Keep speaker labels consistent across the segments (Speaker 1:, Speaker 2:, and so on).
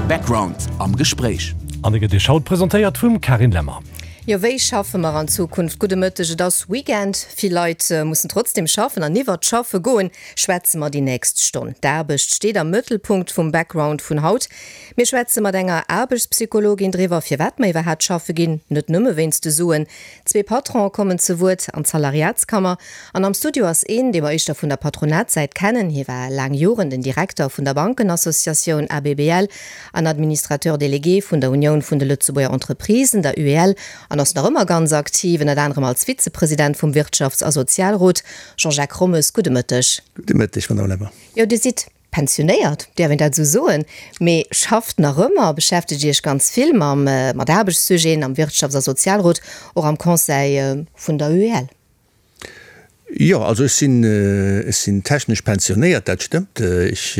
Speaker 1: Background am Gespréich.
Speaker 2: An e gëtt Iech haut presentéiert vum Carine Lemmer.
Speaker 3: Jo, wéi schaffe mer an Zukunft? Gudde Mëtteg, et ass Weekend, vill Leit mussen trotzdem schaffen an iwwert d'Schaffe goen schwätze mer déi nächst Stonn. D'Aarbecht steet am Mëttelpunkt vum Background vun haut. Mir schwätze mat enger Aarbechtspsychologin driwwer, firwat mer iwwerhaapt schaffe ginn, net nëmme wéinst de Suen. Zwee Patronen kommen ze Wuert an d'Salariatskammer. An am Studio ass een, dee mer éischter vun der Patronatssäit kennen. Hie war laang Joren den Direkter vun der Bankenassociatioun ABBL an Administrateur délégué vun der Unioun vun de Lëtzebuerger Entreprisen, der UEL, an ass nach ëmmer ganz aktiv, ënnert anerem als Vizepresident vum Wirtschafts a Sozialrot. Jean-Jacques Rommes, gudde Mëtteg.
Speaker 4: Gudde Mëtteg, Madamm Lemmer.
Speaker 3: Jo, Dir sidd Pensionéiert, däerf een dat esou soen, mee schafft nach ëmmer, beschäftegt Iech ganz vill mam, mat Aarbechtssujeten am Wirtschafts a Sozialrot, och am Conseil vun der UEL.
Speaker 4: Jo, also ech sinn, ech sinn technesch pensionéiert, dat stëmmt. Ech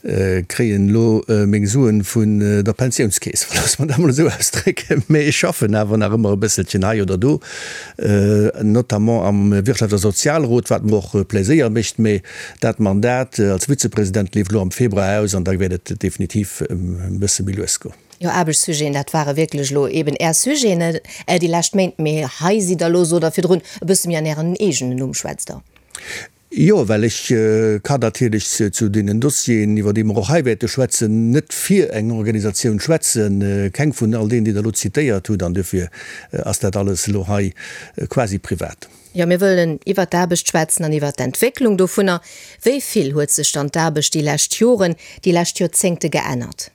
Speaker 4: kréien elo meng Suen vun der Pensiounskeess, loosse mer dat emol esou ausdrécken. Mee ech schaffen awer nach ëmmer e bësselchen hei oder do, notamment am Wirtschafts a Sozialrot, wat mer och Pläséier mécht. Mee Dat Mandat als Vizepresident leeft elo am Februar aus an da wäert et definitiv e bësse méi lues goen.
Speaker 3: Jo, Aarbechtssujeten, dat ware wierklech elo eeben Är Sujeten déi lescht Méint. Mee hei sidd Der elo, sot Der virdrun, e bësse méi an Ären eegenen Numm, schwätzt Der.
Speaker 4: Jo, well ech kann natierlech zu deenen Dossieren, iwwer déi mer och hei wäerte schwätzen, net fir eng Organisatioun schwätzen, keng vun all deenen, déi Der elo zitéiert hutt. An duerfir ass dat alles elo hei quasi privat.
Speaker 3: Jo, mir wëllen iwwert d'Aarbecht schwätzen an iwwert d'Entwécklung dovunner. Wéi vill huet sech dann d'Aarbecht déi lescht Joren, déi lescht Joerzéngte geännert?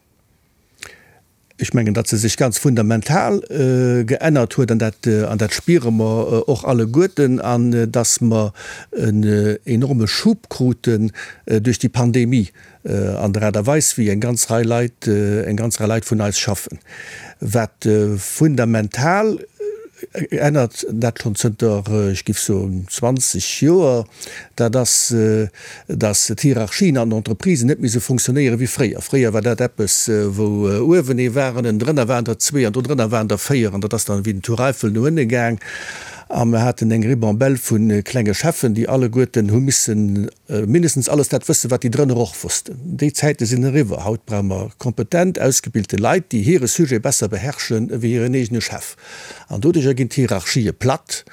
Speaker 4: Ech mengen, datt se sech ganz fundamental geännert huet, an dat, an dat spiere mer och alleguerten, an datt mer en enorme Schub kruten duerch déi Pandemie an der Aart a Weis, wéi eng ganz Rei Leit, eng ganz Rei Leit vun eis schaffen. Wat fundamental ännert, dat schonn zënter, ech géif soen, 20 Joer, dat ass, datt d'Hierarchien an den Entreprisen net méi esou fonctionnéiere wéi fréier. Fréier war dat eppes, wou uewen ee war an ënnendrënner waren der zwee an dodrënner waren der véier an dat ass dann wéi den Tour Eiffel no ënne gaang a mer haten eng Ribambelle vu klenge Cheffen, déi alleguerten hu missen mindestens alles dat wëssen, wat déi drënner och wossten. Déi Zäite sinn eriwwer. Haut brauche mer kompetent, ausgebilte Leit, déi hire Sujet besser beherrschen ewéi hiren eegene Chef. An doduercher ginn d'Hierarchië platt.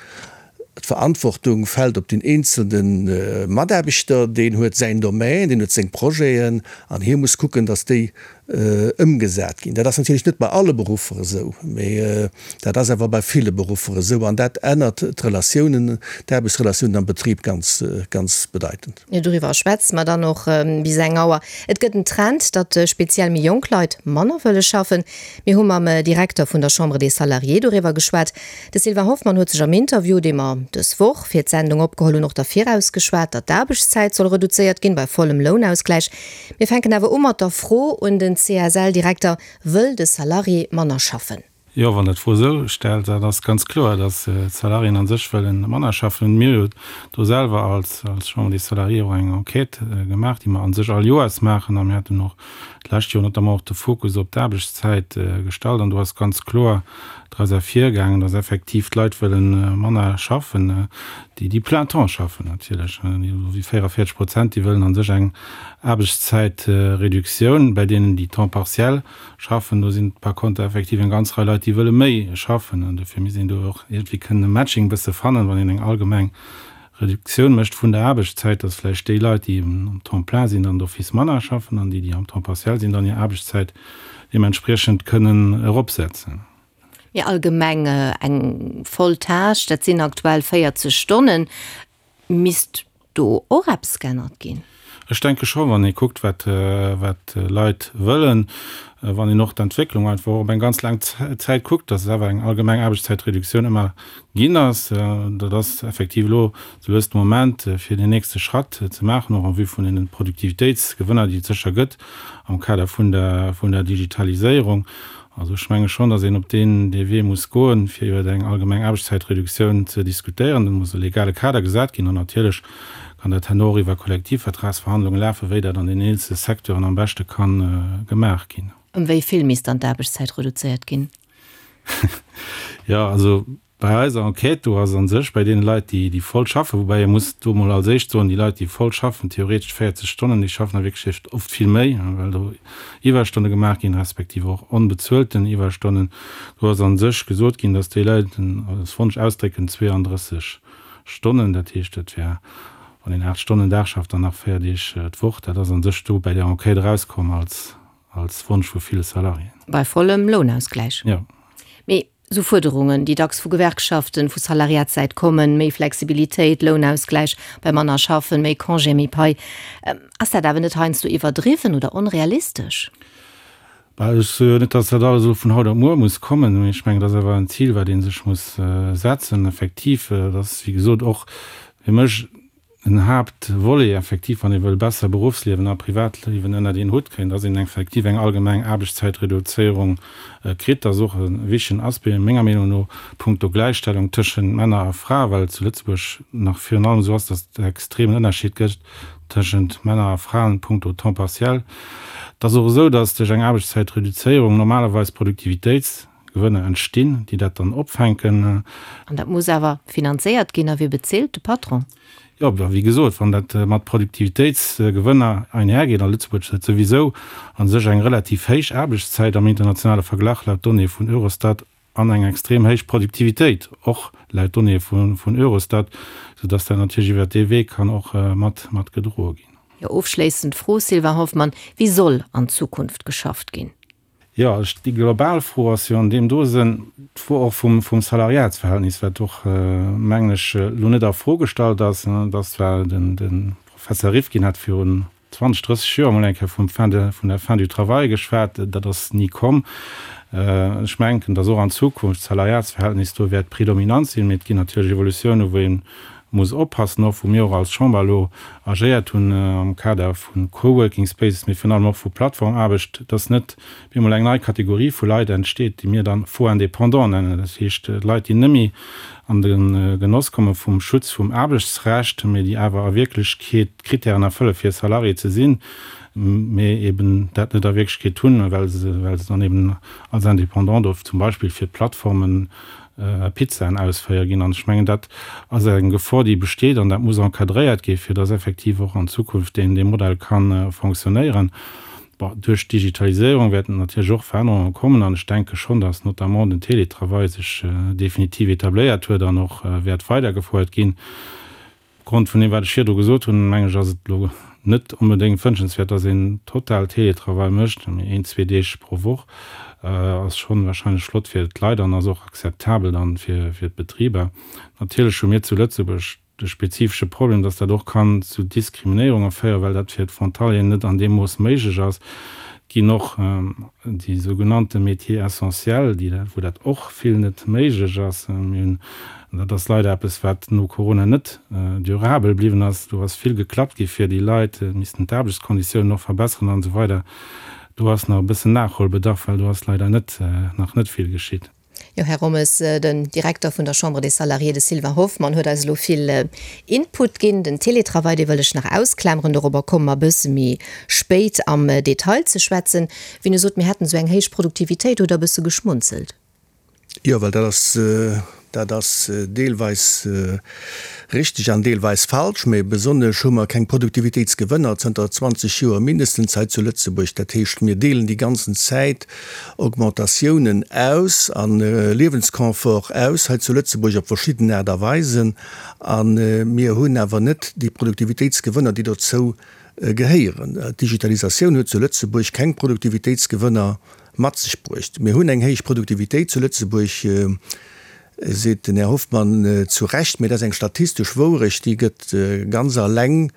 Speaker 4: D'Verantwortung fält op den eenzelne Mataarbechter. Deen huet säin Domaine, deen huet seng Projeten an hie muss kucken, datt déi ëmgesat ginn. Dat ass natierlech net bei alle Beruffer esou, mee dat ass awer bei ville Beruffer esou an dat ännert d'Relatiounen, d'Aarbechtsrelatiounen am Betrib ganz, ganz bedeitend.
Speaker 3: Jo, doriwwer schwätze mer dann och bis eng Auer. Et gëtt en Trend, datt speziell méi jonk Leit manner wëlle schaffen. Mir hu mam Direkter vun der Chambre des Salariés doriwwer geschwat. De Sylvain Hoffmann huet sech am Interview, dee mer dës Woch fir d'Sendung opgeholl hunn, och derfir ausgeschwat, datt d'Aarbechtszäit soll reduzéiert ginn, bei vollem Lounausgläich. Mir fänken awer u mat der Fro un den CSL-Direkter, Wëll de Salarié manner schaffen?
Speaker 5: Jo, wann Der d'Fro esou stellt, dat ass ganz kloer, datt d'Salariéen a sech wëlle manner schaffen. Mir hu jo do selwer als Chambre des Salariés och eng Enquête gemaach, déi mer a sech all Joers maachen. A mir haten och d'lescht Joer notamment och de Fokus op d'Aarbechtszäit gestallt. An do ass ganz kloer draus ervirgaangen, datt effektiv d'Leit wëlle manner schaffen, déi déi plein temps schaffen natierlech, déi 44 Prozent, déi wëllen a sech eng Aarbechtszäitreduktioun. Bei deenen, déi temps partiel schaffen, do sinn par conter effektiv eng ganz Rei Leit, déi wëlle méi schaffen. An dofir misst een do och iergendwéi kënnen e Matching e bësse fannen, wann een eng allgemeng Reduktioun mécht vun der Aarbechtszäit, dass vläicht déi Leit, déi am Temps plein sinn, dann d'office manner schaffen an déi, déi am Temps partiel sinn, dann hir Aarbechtszäit deementspriechend kënnen eropsetzen.
Speaker 3: Mee allgemeng eng voll Tâche, dat sinn aktuell 40 Stonnen. Misst do och eppes geännert ginn?
Speaker 5: Ech denke scho, wann ee kuckt, wat d'Leit wëllen, wann een och d'Entwécklung einfach och op eng ganz laang Zäit kuckt, dass et awer eng allgemeng Aarbechtszäitreduktioun ëmmer ginn ass. Dat ass effektiv elo sou lues de Moment, fir deen nächste Schratt ze maachen, och en vue vun deene Produktivitéitsgewënner, déi et sécher gëtt am Kader vun der Digitaliséierung. Also ech menge schonn, datt een op deen dee Wee muss goen, fir iwwer eng allgemeng Aarbechtszäitreduktioun ze diskutéieren. Et muss e legale Kader gesat ginn an natierlech kann dat herno och iwwer Kollektivvertragsverhandlunge lafen, wéi dat an den eenzele Secteuren am beschte ka gemaach ginn.
Speaker 3: Ëm wéi vill misst dann d'Aarbechtszäit reduzéiert ginn?
Speaker 5: Jo, also. Bei eiser Enquête do ass a sech bei deene Leit, déi, déi voll schaffen, woubäi ee muss do emol als éischt soen, déi Leit, déi voll schaffen, theoretesch 40 Stonnen, déi schaffen a Wierklechkeet oft vill méi, well do Iwwerstonne gemaach ginn, respektiv och onbezuelten Iwwerstonnen. Do ass a sech gesot ginn, datt déi Leit als Wonsch ausdrécken 32 Stonnen, dat heescht, dat wär, wann een 8 Stonnen Dag schafft, dann nach 4 Deeg d'Woch. Dat ass a sech do bäi där Enquête erauskomm als, als Wonsch vu ville Salariéen.
Speaker 3: Bei vollem Lounausgläich.
Speaker 5: Jo.
Speaker 3: Mee Esou Fuerderungen, déi dacks vu Gewerkschaften, vu Salariatssäit kommen, méi Flexibilitéit, Lounausgläich bei manner Schaffen, méi Congé, méi Pai, ass dat awer net heiansdo iwwerdriwwen oder onrealistesch?
Speaker 5: Bah, ech soe jo net, datt dat alles elo vun haut op muer muss kommen, mee ech mengen, dat ass awer en Zil, wat ee sech muss setzen. Effektiv, dat ass, wéi gesot, och fir mech En Haaptvolet effektiv, wann ee wëll besser Beruffsliewen a Privatliewen ënnert een Hutt kréien, dass een effektiv eng allgemeng Aarbechtszäitreduzéierung kritt. Dat ass och e wichtegen Aspect, menger Meenung no, punkto Gläichstellung tëschent Männer a Frae, well et zu Lëtzebuerg nach virun allem esou ass, dass et e extremen Ënnerscheed gëtt tëschent Männer a Fraen punkto Temps partiel. Et ass och esou, dass duerch eng Aarbechtszäitreduzéierung normalerweis Produktivitéits. Gewënner entstinn, déi dat dann opfänken.
Speaker 3: An dat muss awer finanzéiert ginn. A wie bezilt? De Patron?
Speaker 5: Jo, a wéi gesot, wann dat mat Produktivitéitsgewënner einhergeet, a Lëtzebuerg huet souwisou a sech eng relativ héich Aarbechtszäit am internationale Verglach laut Donnéeë vun Eurostat an eng extrem héich Produktivitéit och laut Donnéeë vun Eurostat, soudass dat natierlech iwwert dee Wee kann och mat gedroe ginn.
Speaker 3: Jo, ofschléissend Fro, Sylvain Hoffmann, Wéi soll an Zukunft geschafft ginn?
Speaker 5: Jo, ech, déi global Fro ass jo an deem do Sënn d'Fro och vum, vum Salariatsverhältnis, wat och, mengen ech, elo net a Fro gestallt ass. Et ass zwar, den, de Professer Rifkin hat virun 20, 30 Joer emol eng Kéier vum Fin de, vun der Fin du travail geschwat, dat ass ni komm. Ech mengen, datt och an Zukunft d'Salariatsverhältnis do wäert predominant sinn, mee et ginn natierlech Evolutiounen, wou ee muss oppassen, och wou mir och als Chamber elo agéiert hunn am Kader vu Coworking Spaces, mee virun allem och vu Plattformaarbecht, dass net op eemol eng nei Kategorie vu Leit entsteet, déi mir dann faux indépendants nennen, dat heescht Leit, déi net méi an de Genoss komme vum Schutz vum Aarbechtsrecht, mee déi awer a Wierklechkeet d'Kritären erfëlle fir Salarié ze sinn, mee eben dat net a Wierklechkeet hunn, well se well se dann eben als Indépendant do zum Beispill fir d'Plattformen Pizzaen ausféiere ginn. An ech mengen, dat ass eng Gefor, déi besteet, an dat muss encadréiert gi fir dass effektiv och an Zukunft deen dee Modell ka fonctionnéieren. Bon, duerch d'Digitaliséierung wäerten natierlech och Verännerunge kommen an ech denke schonn, dass notamment den Télétravail sech definitiv etabléiert huet an och wäert weidergefouert ginn. Opgrond vun deem, wat ech virdru gesot hunn, mengen ech, ass et elo net onbedéngt wënschenswäert, dass een total Télétravail mécht, mee een, zwee Deeg pro Woch ass schonn wahrscheinlech flott fir d'Leit an ass och akzeptabel dann fir d'Betriber. Natierlech hu mir zu Lëtzebuerg de spezifesche Problem, dass dat och kann zu Diskriminéierunge féieren, well dat fir d'Frontalieren net an deem Mooss méiglech ass. Et ginn och déi sougenannte Métiers essentiels, déi dat, wou dat och vill net méiglech ass. Mir hunn An dat ass leider eppes, wat no Corona net durabel bliwwen ass. Do ass vill geklappt gi fir déi Leit, et missten d'Aarbechtskonditiounen och verbesseren an esou weider. Do ass nach e bëssen Nachholbedarf, well do ass leider net, nach net vill geschitt.
Speaker 3: Jo, Här Rommes, den Direkter vun der Chambre des Salariés, de Sylvain Hoffmann, huet eis elo vill Input ginn. Den Télétravail, dee wëll ech nach ausklameren, dorobber komme mer e bësse méi spéit am Detail ze schwätzen. Wien e sot, mir hätten esou eng héich Produktivitéit, huet e bësse geschmunzelt.
Speaker 4: Jo, well dat ass, dat ass deelweis richteg an deelweis falsch. Mä besonnesch hu mer keng Produktivitéitsgewënner zënter 20 Joer mindestens hei zu Lëtzebuerg. Dat heescht, mir deelen déi ganzen Zäit Augmentatiounen aus a Liewensconfort aus hei zu Lëtzebuerg op verschidden Aart a Weisen. A mir hunn awer net déi Produktivitéitsgewënner, déi dozou gehéieren. D'Digitalisatioun huet zu Lëtzebuerg keng Produktivitéitsgewënner mat sech bruecht. Mir hunn eng héich Produktivitéit zu Lëtzebuerg, seet den Här Hoffmann zu Recht, mee dat ass eng statistesch Wourecht, déi gëtt ganz alleng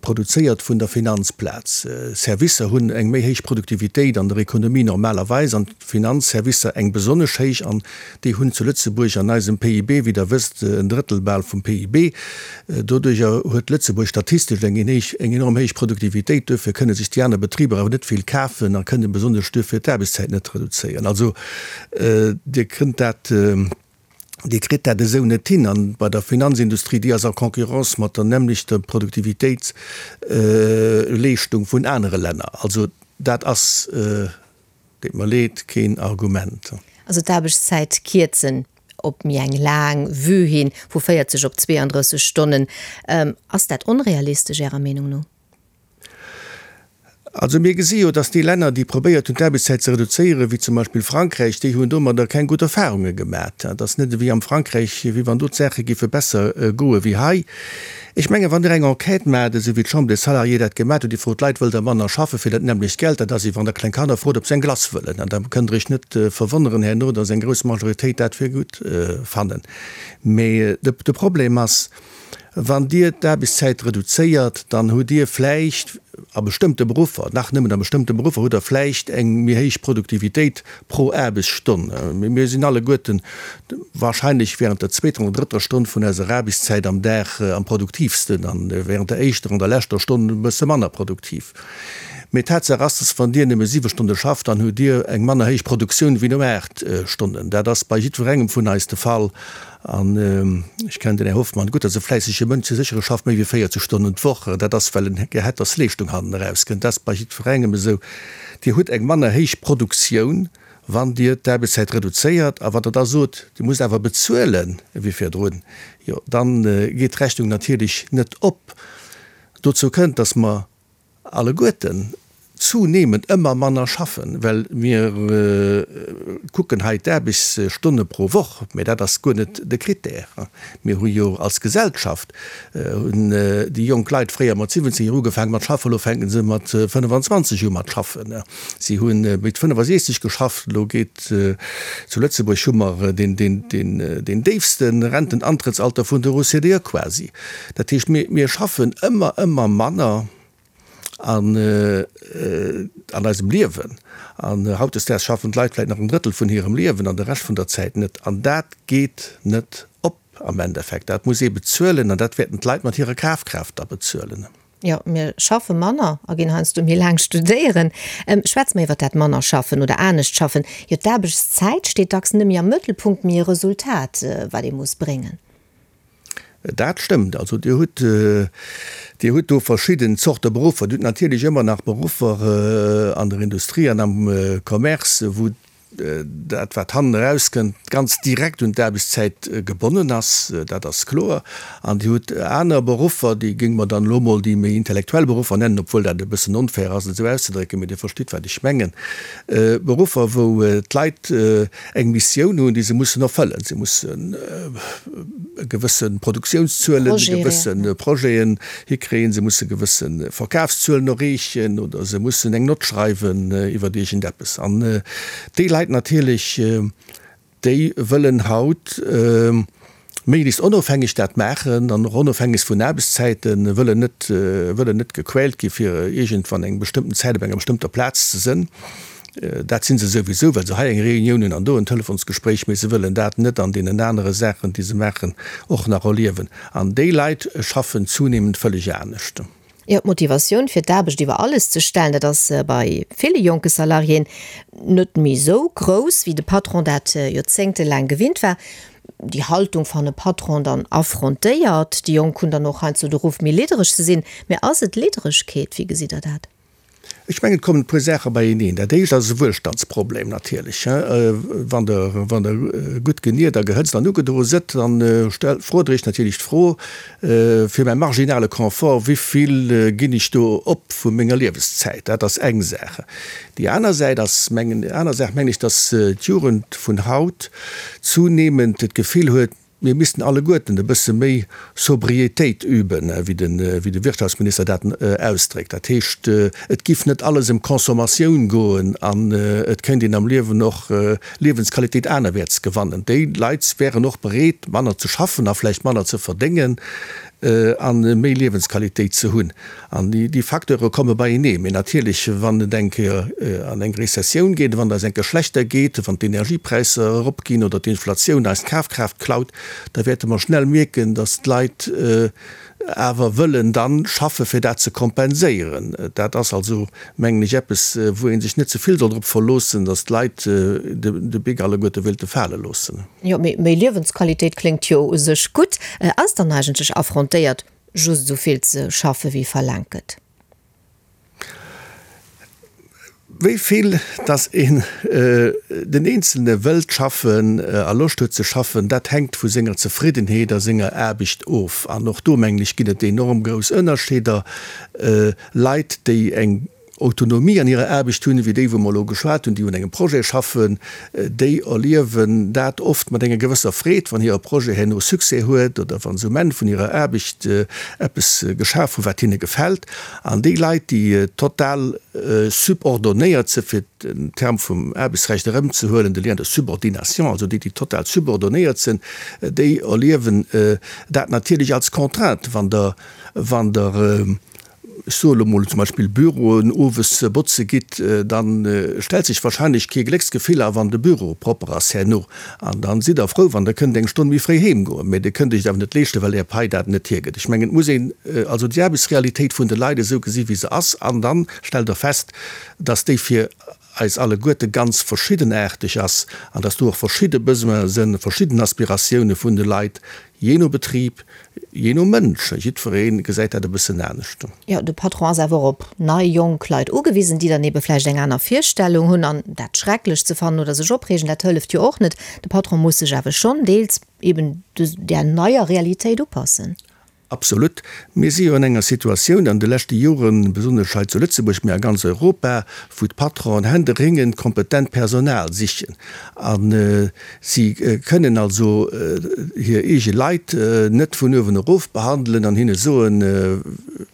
Speaker 4: produzéiert vun der Finanzplaz. Servicer hunn eng méi héich Produktivitéit an der Ekonomie normalerweis an d'Finanzservicer eng besonnesch héich an déi hunn zu Lëtzebuerg an eisem PIB, wéi Der wësst, en Drëttel bal vum PIB. Doduerjer huet Lëtzebuerg statistesch eng eng enorm héich Produktivitéit. Duerfir kënne sech déi aner Betriber awer net vill kafen a kënne besonnesch duerfir d'Aarbechtszäit net reduzéieren. Also Dir kënnt dat, Dir kritt dat esou net hin. An bei der Finanzindustrie, déi ass a Concurrence mat der nämmlechter Produktivitéitsleeschtung vun anere Länner. Also dat ass, deet mer leed, keen Argument.
Speaker 3: Also d'Aarbechtszäit kierzen. op méi eng laang Vue hin, vu 40 op 32 Stonnen. Ass dat onrealistesch Ärer Meenung no?
Speaker 4: Also mir gesi jo, datt déi Länner, déi probéiert hunn d'Aarbechtszäit ze reduzéieren, wéi zum Beispill Frankräich, déi hunn domadder keng gutt Erfahrunge gemat. Et ass net ewéi am Frankräich, wéi wann do d'Saache géife besser goe wéi hei. Ech mengen, wann Der eng Enquête maacht, esou wéi d'Chambre des Salariés dat gemat huet, Dir frot d'Leit, Wëllt Der manner schaffe fir dat nämmlecht Geld? Dat ass, wéi wann Der kleng Kanner frot, ob se eng Glace wëllen. An da kënnt Der Iech net verwonneren herno, datt eng grouss Majoritéit dat fir gutt fannen. Mee de Problem ass, Wann Dir d'Aarbechtszäit reduzéiert, dann hutt Dir vläicht a bestëmmte Beruffer, nach nëmmen a bestëmmte Beruffer, hutt Der vläicht eng méi héich Produktivitéit pro Aarbechtsstonn. Mee mir sinn alleguerten wahrscheinlech während der zweeter oder drëtter Stonn vun eiser Aarbechtszäit am Dag am produktiivsten an während der éischter an der leschter Stonn e bësse manner produktiv. Mee Tatsaach ass, dass wann Dir nëmme siwe Stonne schafft, dann hutt Dir eng manner héich Produktioun wéi no aacht Stonnen. Dat ass bei jiddwerengem vun eis de Fall. An ech kennen den Här Hoffmann gutt, dat ass e fläissege Mënsch, dee sécher, e schafft méi wéi 40 Stonnen d'Woch. Dat ass, well en gär hätt, dass Leeschtung hannen erauskënnt. Dat ass bei jiddwerengem esou. Dir hutt eng manner héich Produktioun, wann Dir d'Aarbechtszäit reduzéiert. A wann Der da sot, Dir musst awer bezuelen ewéi virdrun, jo, da geet d'Rechnung natierlech net op. Dozou kënnt, dass mer alleguerten zunehmend ëmmer manner schaffen, well mir kucken hei d'Aarbechtsstonne pro Woch, mä dat ass guer net de Critère. Mir hu jo als Gesellschaft, hunn déi jonk Leit fréier mat 17 Joer ugefaange mat schaffen, elo fänke se mat 25 u mat schaffen. Si hu mit 65 geschafft, elo geet, zu Lëtzebuerg hu mer deen déifste Rentenantrittsalter vun der OCDE quasi. Dat heescht, mir schaffen ëmmer, ëmmer manner an an eisem Liewen. An hautdesdaags schaffen d'Leit vläicht nach en Drëttel vun hirem Liewen an de Rescht vun der Zäit net. An dat geet net op am Endeffekt. Dat muss ee bezuelen an dat wäerten d'Leit mat hirer Kafkraaft da bezuelen.
Speaker 3: Jo, mir schaffe manner a ginn heiansdo méi laang studéieren. Schwätze mer iwwer dat manner schaffen oder anescht schaffen. Jo, d'Aarbechtszäit steet dacks net méi am Mëttelpunkt, mee e Resultat, wat ee muss bréngen.
Speaker 4: Dat stëmmt. Also Dir hutt, Dir hutt do verschidden Zorte Beruffer. Dir hutt natierlech ëmmer nach Beruffer an der Industrie an am Commerce, wou dat, wat hannen erauskënnt, ganz direkt un d'Aarbechtszäit gebonnen ass. Dat ass kloer. An Dir hutt aner Beruffer, déi géinge mer dann elo emol déi méi intellektuell Beruffer nennen, obwuel dat e bëssen onfair ass, et esou auszedrécken, mee Dir verstitt, wat ech mengen, Beruffer, wou d'Leit eng Missioun hunn, déi se mussen erfëllen. Se mussen gewësse Produktiounszuelen, gewësse Projeten hikréien, se musse gewësse Verkafszuelen erreechen oder se mussen eng Nott schreiwen iwwer iergendeppes. An déi Leit natierlech, déi wëllen haut méiglechst onofhängeg dat maachen an och onofhängeg vun Aarbechtszäiten, wëllen net, wëllen net gequält gi fir iergendwann eng bestëmmten Zäit op enger bestëmmter Plaz ze sënn. Dat si se souwisou, well se hei eng Reunioun hunn an do en Telefonsgespréich, mee se wëllen dat net an deenen anere Saachen, déi se maachen, och nach erliewen. An déi Leit schaffen zunehmend vëlleg anescht.
Speaker 3: Jo, d'Motivatioun fir d'Aarbecht iwwer alles ze stellen, dat ass bei ville jonke Salariéen net méi esou grouss, wéi de Patron dat joerzéngtelaang gewinnt war. Déi Haltung fanne Patron dann affrontéiert. Déi Jonk hunn dann och heiansdo de Ruff, méi liddereg ze sinn. Mä ass et Lidderegkeet? Wéi gesitt Der dat?
Speaker 4: Ech mengen, et kommen e puer Saache beieneen. Dat éischt ass e Wuelstandsproblem natierlech. Wann Der, wann Der gutt geniert a gehëtzt an ugedroe sëtt, dann frot Der Iech natierlech d'Fro, Fir mäi marginale Confort, wéi vill ginn ech do op vu menger Liewenszäit? Dat ass eng Saach. Déi aner Säit ass, mengen, aner Saach mengen ech, datt d'Jugend vun haut zunehmend d'Gefill huet, Mir missten alleguerten e bësse méi Sobriétéit üben, wéi de Wirtschaftsminister dat ausdréckt. Dat heescht, et giff net alles ëm Consommatioun goen an et kéint een am Liewen och Liewensqualitéit anerwäerts gewannen. Déi Leit wären och bereet, manner ze schaffen a vläicht manner ze verdéngen a méi Liewensqualitéit ze hunn. An déi Facteure komme beienee. Mee natierlech, wann et eng Kéier an eng Rezessioun geet, wann et eis eng Kéier schlechter geet, wann d'Energiepräisser eropginn oder d'Inflatioun eis d'Kafkraaft klaut, da wäerte mer schnell mierken, datt d'Leit awer wëllen dann schaffe fir dat ze kompenséieren. Dat ass also, mengen ech, eppes, wou ee sech net ze vill soll drop verloossen, datt d'Leit de Bic alleguerte wéilte fale loossen.
Speaker 3: Jo, mee méi Liewensqualitéit kléngt jo u sech gutt. Ass dann eigentlech affrontéiert, just esou vill ze schaffe wéi verlaangt gëtt?
Speaker 4: Wéi vill dass een den Eenzelne wëllt schaffen a Loscht huet ze schaffen, dat hänkt vu senger Zefriddenheet a senger Aarbecht of. An och do, mengen ech, ginn et enorm grouss Ënnerscheeder. Leit, déi eng Autonomie an hirer Aarbecht hunn, wéi déi, wou mer elo geschwat hunn, déi un engem Projet schaffen, déi erliewen dat oft mat enger gewësser Freed, wann hire Projet herno Succès huet oder wa se um Enn vun hirer Aarbecht eppes geschaf hunn, wat hinne gefält. An déi Leit, déi total subordonéiert sinn, fir den Term vum Aarbechtsrecht erëmzehuelen, de Lien de subordination, also déi, déi total subordonéiert sinn, déi erliewen dat natierlech als Contrainte, wann Der, wann Der, ech soe lo mol zum Beispill Büroen owes botze gitt, da stellt sech wahrscheinlech kee Glécksgefill a wann de Büro propper ass herno. An da sidd Der frou, wann Der kënnt eng Stonn méi fréi heem goen, mä Dir kënnt Iech et awer net leeschten, well Är Pai dat net hiergëtt. Ech mengen, et muss een also déi Aarbechtsrealitéit vun de Leit esou gesi wéi se ass an da stellt Der fest, dass déi fir eis alleguerte ganz verschiddenaarteg ass an dass do och verschidde Besoine sënn, verschidden Aspiratioune vun de Leit, jee no Betrib, jee no Mënsch. Jiddweree gesäit dat e bëssen anescht.
Speaker 3: Jo, de Patron ass awer och op nei, jonk Leit ugewisen, déi dann ebe vläicht eng aner Virstellung hunn. An dat schrecklech ze fannen oder sech opreegen, dat hëlleft jo och net. De Patron muss sech awer schonn deels eben där neier Realitéit upassen.
Speaker 4: Absolut. Mir si jo an enger Situatioun an de leschte Joren, besonnesch hei zu Lëtzebuerg, mä a ganz Europa, wou d'Patronen händeringend kompetent Personal sichen. A si kënnen also hir eege Leit net vun uewen erof behandelen an hinne soen,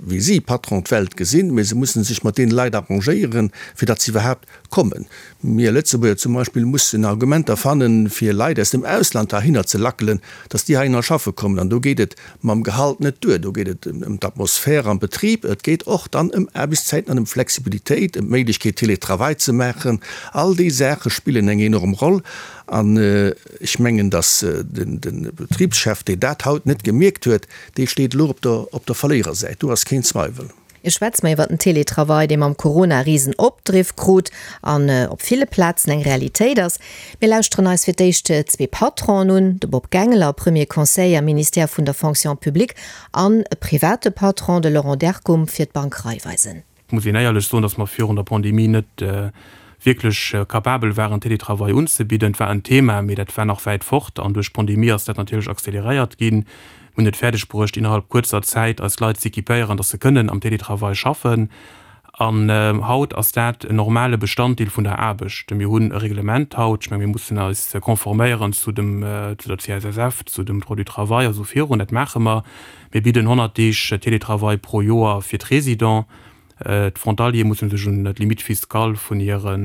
Speaker 4: wéi si, Patron, d'Welt gesinn, mä se mussen sech mat deene Leit arrangéieren, fir datt se iwwerhaapt kommen. Mir Lëtzebuerger zum Beispill mussen Argumenter fannen, fir Leit aus dem Ausland heihinner ze lackelen, dass déi heihinner schaffe kommen. An do geet et mam Gehalt net duer, do geet et ëm d'Atmosphär am Betrib, et geet och dann ëm Aarbechtszäiten an ëm Flexibilitéit, ëm d'Méiglechkeet Télétravail ze maachen. All déi Saache spillen eng enorm Roll. An ech mengen, dass de Betribschef, deen dat haut net gemierkt huet, dee steet elo op der Verléierersäit, do ass keen Zweiwel.
Speaker 3: Ech schwätze mer iwwer den Teletravail, dee mam Corona risen Opdriff krut an op ville Plazen eng Realitéit ass. Mir lauschteren eis fir d'éischt zwee Patronen un, de Bob Gangler, Premier Conseiller am Ministère vun der Fonction publique an e private Patron, de Laurent Derkum fir d'Bank Raiffeisen.
Speaker 6: Et muss een éierlech soen, datt mer virun der Pandemie net wierklech capabel waren, Teletravail unzebidden. Et war en Thema, mee dat war nach wäit fort. An duerch d'Pandemie ass dat natierlech acceleréiert ginn. Mir hunn et fäerdeg bruecht, innerhalb kuerzer Zäit eis Leit z'equipéieren, dass se kënnen am Teletravail schaffen. An haut ass dat en normale Bestanddeel vun der Aarbecht. Mir hunn e Reglement haut, ech menge mir mussen eis conforméieren zu dem, zu der CSSF, zu dem Droit du travail a sou virun. Dat maache mer. Mir bidden 100 Deeg Teletravail pro Joer fir d'Résidents. D'Frontaliere musse sech un d'Limite fiscale vun hire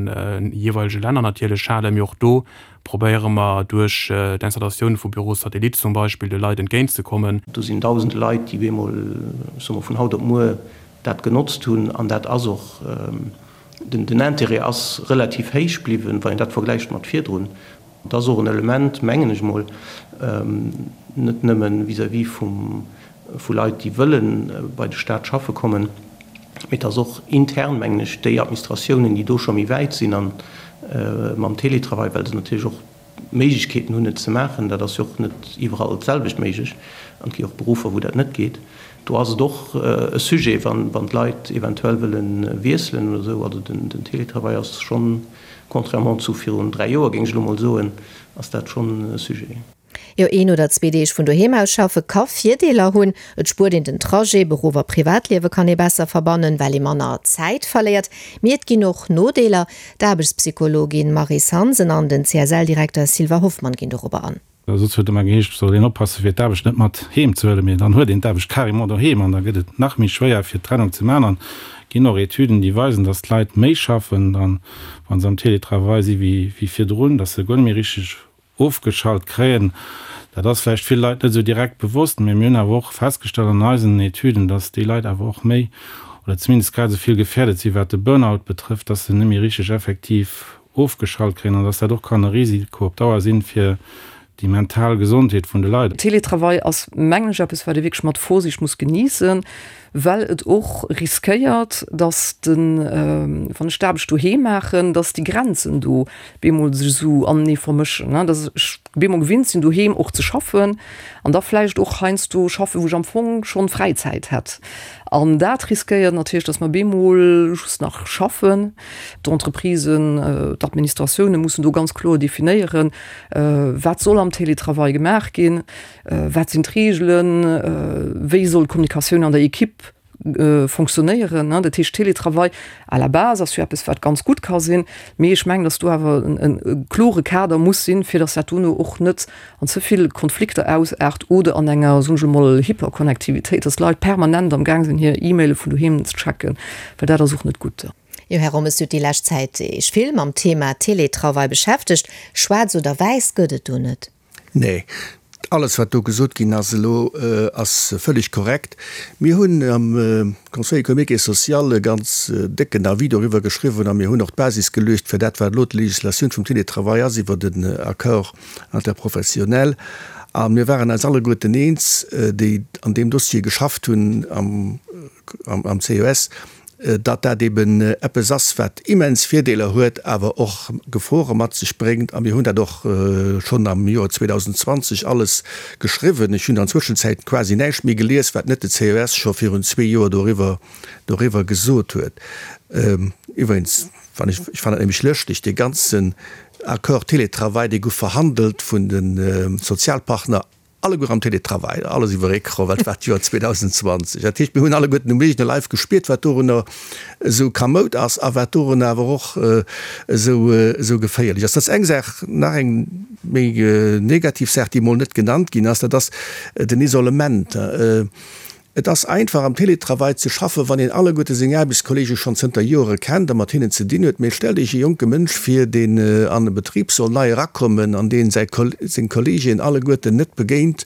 Speaker 6: jeeweilege Länner natierlech halen. Mee och do probéiere mer duerch d'Installatioun vu Bureaux satellites zum Beispill de Leit entgéintzekommen.
Speaker 7: Do sinn dausende Leit, déi bemol, ech soe mol, vun haut op muer dat genotzt hunn. An dat ass och, den Intérêt ass relativ héich bliwwen, wann een dat vergläicht mat virdrun. Et ass och en Element, mengen ech mol, net nëmme vis-à-vis vum, vu Leit, déi wëlle bei de Stat schaffe kommen, mee et ass och intern, mengen ech, déi Administratiounen, déi do scho méi wäit sinn a mam Télétravail, well se natierlech och d'Méiglechkeeten hunn, et ze maachen. Dat ass jo och net iwwerall d'selwecht méiglech an et gi och Beruffer, wou dat net geet. Do ass et och e Sujet, wann d'Leit eventuell wëlle wiesselen oder esou. Also den Télétravail ass schonn, contrairement zu virun 3 Joer, géing ech elo mol soen, ass dat schonn e Sujet.
Speaker 3: Jo, een oder zwee Deeg vun doheem aus schaffe ka Virdeeler hunn. Et spuert een den Trajet, Beruff a Privatliewe kann ee besser verbannen, well ee manner Zäit verléiert. Mee et ginn och Nodeeler. D'Aarbechtspsychologin Maryse Hansen an den CSL-Direkter Sylvain Hoffmann ginn dorobber an.
Speaker 5: Soss huet ëmmer geheescht, et soll een oppassen, fir d'Aarbecht net mat heem ze huelen, mee dann huet een d'Aarbecht carrément doheem an da gëtt et nach méi schwéier, fir d'Trennung ze maachen. An et ginn och Etüden, déi weisen, dass d'Leit méi schaffen dann, wa se am Télétravail si wéi virdrun, dass se guer net méi richteg ofgeschalt kréien. Dat ass vläicht ville Leit net esou direkt bewosst, mee mir hunn awer och festgestallt an eisen Etüden, dass déi Leit awer och méi oder zumindest grad esou vill gefährdet si wat de Burnout betrëfft, dass se net méi richteg effektiv ofgeschalt kréien an dass dat och kann e Risiko op Dauer sinn fir déi mental Gesondheet vun de Leit.
Speaker 8: Teletravail ass, mengen ech, eppes, wat ee wierklech mat Vorsicht muss geniessen, well et och riskéiert, dass den, wann ech d'Aarbecht doheem maachen, dass déi Grenzen do bemol sech esou anenee vermëschen, dass ech bemol gewinnt sinn, doheem och ze schaffen an da vläicht och heiansdo schaffen, wou ech am Fong schonn Fräizäit hätt. An dat riskéiert natierlech, dass mer bemol just nach schaffen. D'Entreprisen, d'Administratioune mussen do ganz kloer definéieren, wat soll am Télétravail gemaach ginn, wat sinn d'Reegelen, wéi soll d'Kommunikatioun an der Ekipp fonctionnéieren. Dat heescht, Télétravail à la base ass jo eppes, wat ganz gutt ka sinn, mee ech mengen, dass do awer e klore Kader muss sinn, fir dass dat dono och net an ze vill Konflikter ausaart oder an enger, soen ech emol, Hyperconnectivitéit, dass d'Leit permanent am Gaang sinn, hir E-Maile vun doheem ze checken, well dat ass och net gutt.
Speaker 3: Jo, Här Rommes, Dir hutt déi lescht Zäit Iech vill mam Thema Télétravail beschäftegt. Schwaarz oder wäiss gëtt et do net?
Speaker 4: Nee, alles wat do gesot ginn ass elo, ass völlig korrekt. Mir hunn am Conseil économique et social e ganz décken Avis doriwwer geschriwwen a mir hunn och d'Basis geluecht fir dat, wat elo d'Législatioun vum Télétravail ass iwwer den Accord interprofessionnel. A mir waren eis alleguerten eens, déi an deem Dossier geschafft hunn am CES, datt dat eben eppes ass, wat immens Virdeeler huet, awer och Gefore mat sech bréngt. A mir hunn dat och schonn am Joer 2020 alles geschriwwen. Ech hunn an Zwëschenzäit quasi näischt méi gelies, wat net de CES scho virun zwee Joer doriwwer doriwwer gesot huet. Iwwregens, wann ech, ech fannen dat nämlech lëschteg, dee ganzen Accord Télétravail, dee gouf verhandelt vun de Sozialpartner Alleguer am Télétravail, alles iwwer Ecran, well et war d'Joer 2020. Dat heescht, mir hunn alleguerten um eegene Leif gespiert, wat dorunner esou kamoud ass a wat dorunner awer och esou, esou geféierlech ass. Dat ass eng Saach. Nach eng méi negativ Saach, déi emol net genannt ginn ass, dat ass den Isolement. Et ass einfach am Télétravail ze schaffen, wann een alleguerte seng Aarbechtskollege schonn zënter Joere kennt a mat hinnen ze dinn huet. Mee stellt Iech e jonke Mënsch vir, deen an e Betrib soll nei erakommen an deen säi seng Kollegeen alleguerten net begéint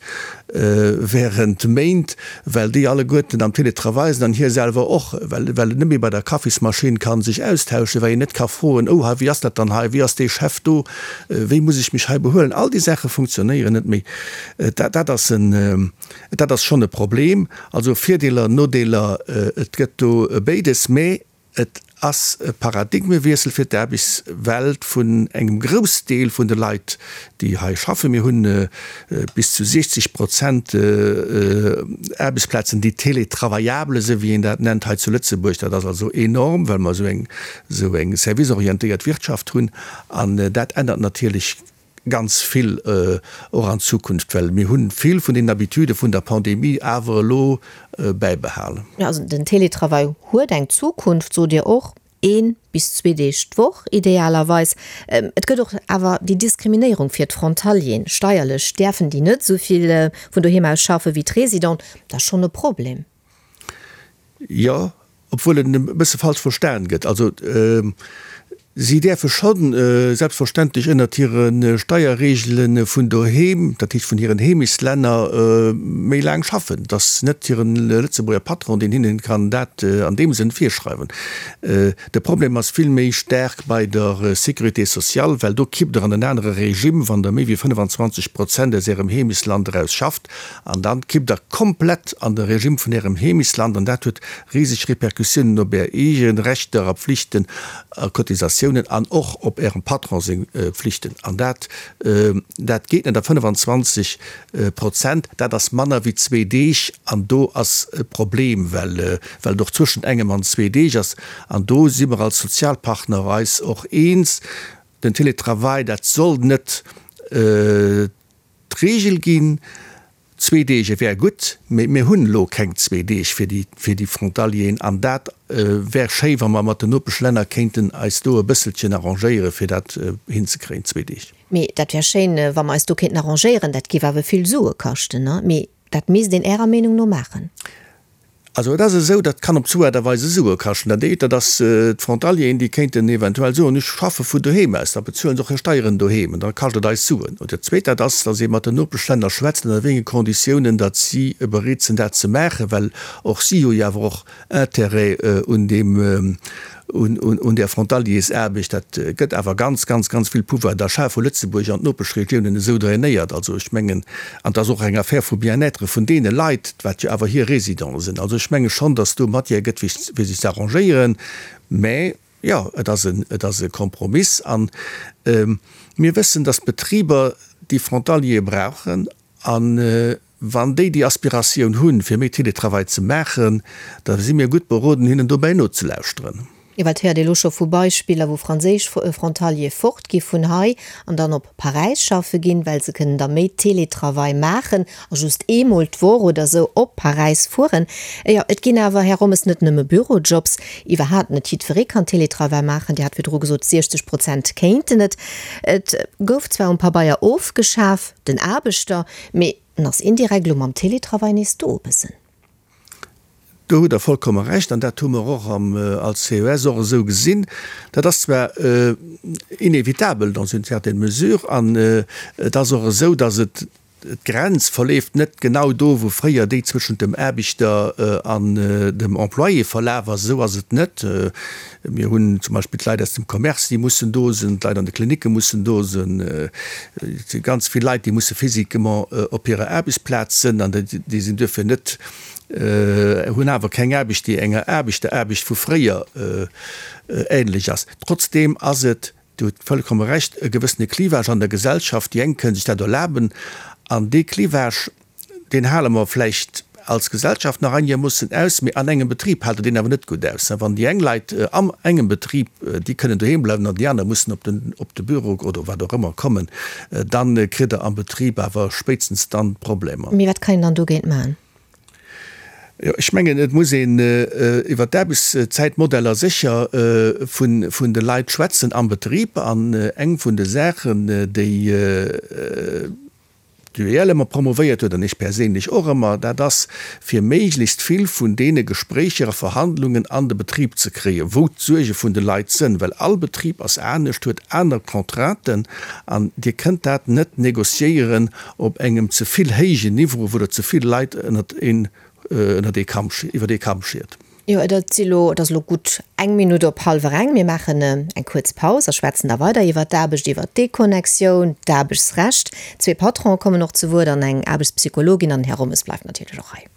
Speaker 4: während Méint, well déi alleguerten am Télétravail sinn an hie selwer och, well well en net méi bei der Kaffismaschinn ka sech austauschen, well een net ka froen, Oh, hei, wéi ass dat dann hei, wéi ass dee Chef do, wéi muss ech mech hei behuelen? All déi Saache funktionéieren net méi. Dat dat ass en. Dat ass schonn e Problem. Also Virdeeler, Nodeeler, et gëtt do béides. Mä et ass e Paradigmewiessel fir d'Aarbechtswelt vun engem Groussdeel vun de Leit, déi hei schaffen. Mir hunn bis zu 60 Prozent Aarbechtsplazen, déi télétravaillable sinn, wéi een dat nennt hei zu Lëtzebuerg. Dat ass also enorm, well mer esou eng serviceorientéiert Wirtschaft hunn. An dat ännert natierlech Ganz vill, och an Zukunft, well mir hu vill vun den Habitude vun der Pandemie awer elo bäibehalen.
Speaker 3: Also den Télétravail huet eng Zukunft, sot Dir och, ee bis zwee Deeg d'Woch idealerweis. Et gëtt och awer déi Diskriminéierung fir d'Frontalieren. Steierlech däerfen déi net esou vill vun doheem aus schaffe wéi d'Residenten. Dat ass schonn e Problem.
Speaker 4: Jo, obwuel en e bësse falsch verstan gëtt. Also si däerfe scho selbstverständlech ënnert hire Steierreegele vun doheem, dat heescht vun hiren Heemechtslänner, méi laang schaffen. Et ass net hire Lëtzebuerger Patron, deen hinnen kann dat an deem Sënn virschreiwen. De Problem ass vill méi staark bei der Sécurité sociale, well do kippt Der an en anere Regime, wann Der méi wéi 25 Prozent aus Ärem Heemechtsland eraus schafft. An dann kippt der komplett an de Regime vun Ärem Heemechtsland an dat huet riseg Repercussiounen op Är eegen Rechter a Pflichten a Cotisatiounen an och op Ärem Patron seng Pflichten. An dat, dat geet net. A 25 Prozent, dat ass manner wéi zwee Deeg an do ass e Problem, well, well et och zwëschent engem an zwee Deeg ass. An do si mer als Sozialpartner eis och eens, den Télétravail, dat soll net D'Reegel ginn, zwee Deeg, et wär gutt, mee mir hunn elo keng zwee Deeg fir déi, fir déi Frontalieren an dat wär schéi, wa mer mat den Nopeschlänner kéinten eis do e bësselchen arrangéieren, fir dat hinzekréien, zwee Deeg.
Speaker 3: Mee dat wär schéin, wa mer eis do kéinten arrangéieren. Dat géif awer vill Sue kaschten, ne? Mee dat misst een Ärer Meenung no maachen.
Speaker 4: Also et ass esou, dat kann op zwou Aart a Weise Sue kaschten. Dat eent, dat ass d'Frontalieren, déi kéinten eventuell soen, ech schaffe vun doheem aus, da bezuelen se och hir Steieren doheem an da kascht et eis Suen. Oder dat zweet, dat ass, datt ee mat den Nopeschlänner schwätzt, ënner wéi enge Konditiounen datt si bereet sinn dat ze maachen, well och si hu jo awer och Intérêt un deem, un där Frontaliersaarbecht. Dat gëtt awer ganz, ganz, ganz vill Pouvoir d'achat vu Lëtzebuerg an d'Nopeschregiounen esou drainéiert. Also ech mengen, an et ass och eng Affaire vu Bien-être vun deene Leit, wat jo awer hir Résidenten sinn. Also ech menge schonn, datt do Matière gëtt, fir sech ze arrangéieren. Mä jo, et ass en, et ass e Kompromiss. A mir wëssen, datt d'Betriber déi Frontaliere brauchen. A. Wann déi déi Aspiratioun hunn, fir méi Télétravail ze maachen, da si mir gutt beroden, hinnen dobäi nozelauschteren.
Speaker 3: Jo, well et héiert ee lo scho vu Beispiller, wou franséisch Frontaliere fort gi vun hei an dann op Paräis schaffe ginn, well se kënnen da méi Télétravail maachen a just eemol d'Woch oder esou op Paräis fueren. Jo, et ginn awer, Här Rommes, net nëmme Bürojobs. Iwwerhaapt net jiddweree kann Télétravail maachen. Dir hat virdru gesot, 60 Prozent kéinten et. Et gouf zwar um Pabeier ofgeschaf, den Aarbechter, mee en ass indirekt elo mam Télétravail nees do e bëssen.
Speaker 4: Do hutt Der vollkomme Recht, an dat hu mer och am als CES och esou gesinn. Dat ass zwar inévitable dans une certaine mesure, an et ass och esou, datt et d'Grenz verleeft net genau do, wou fréier déi zwëschent dem Aarbechter an dem Employé verlaf ass. Esou ass et net. Mir hunn zum Beispill d'Leit aus dem Commerce, déi mussen do sinn, d'Leit an de Klinicke mussen do sinn. Et si ganz vill Leit, déi musse physiquement op hirer Aarbechtsplaz sinn an déi sinn duerfir net, hunn awer keng Aarbecht, déi enger Aarbechteraarbecht vu fréier ähnlech ass. Trotzdeem ass et, Dir hutt vollkomme Recht, e gewëssene Clivage an der Gesellschaft. Déi eng kënnen sech dat erlaben an dee Clivage, deen hale mer vläicht als Gesellschaft nach einigermoossen aus, mee an engem Betrib hält Der deen awer net gutt aus. Wann déi eng Leit am engem Betrib, déi kënnen doheem bleiwen an déi aner mussen op den, op de Büro oder wat och ëmmer kommen, dann kritt Der am Betrib awer spéitstens dann Problemer.
Speaker 3: Mee wat kann een dann dogéint maachen?
Speaker 4: Jo, ech mengen, et muss een iwwert d'Aarbechtszäitmodeller sécher vun, vun de Leit schwätzen am Betrib. An eng vun de Saachen, déi, D'UEL ëmmer promovéiert huet, an ech perséinlech och ëmmer, dat ass, fir méiglechst vill vun deene Gespréicher a Verhandlungen an de Betrib ze kréien, wou d'Suerge vun de Leit sënn. Well all Betrib ass anescht, huet aner Contrainten, an Dir kënnt dat net négociéieren op engem ze vill héijen Niveau, wou Der ze vill Leit ënnert een, ënnert ee Kamm, iwwer ee Kamm schiert.
Speaker 3: Jo, et ass elo, et ass elo gutt eng Minutt op hallwer eng. Mir maachen eng kuerz Paus a schwätzen da weider iwwert d'Aarbecht, iwwert d'Deconnectioun, d'Aarbechtsrecht. Zwee Patronen kommen och zu Wuert an eng Aarbechtspsychologin an den Här Rommes bleift natierlech och hei.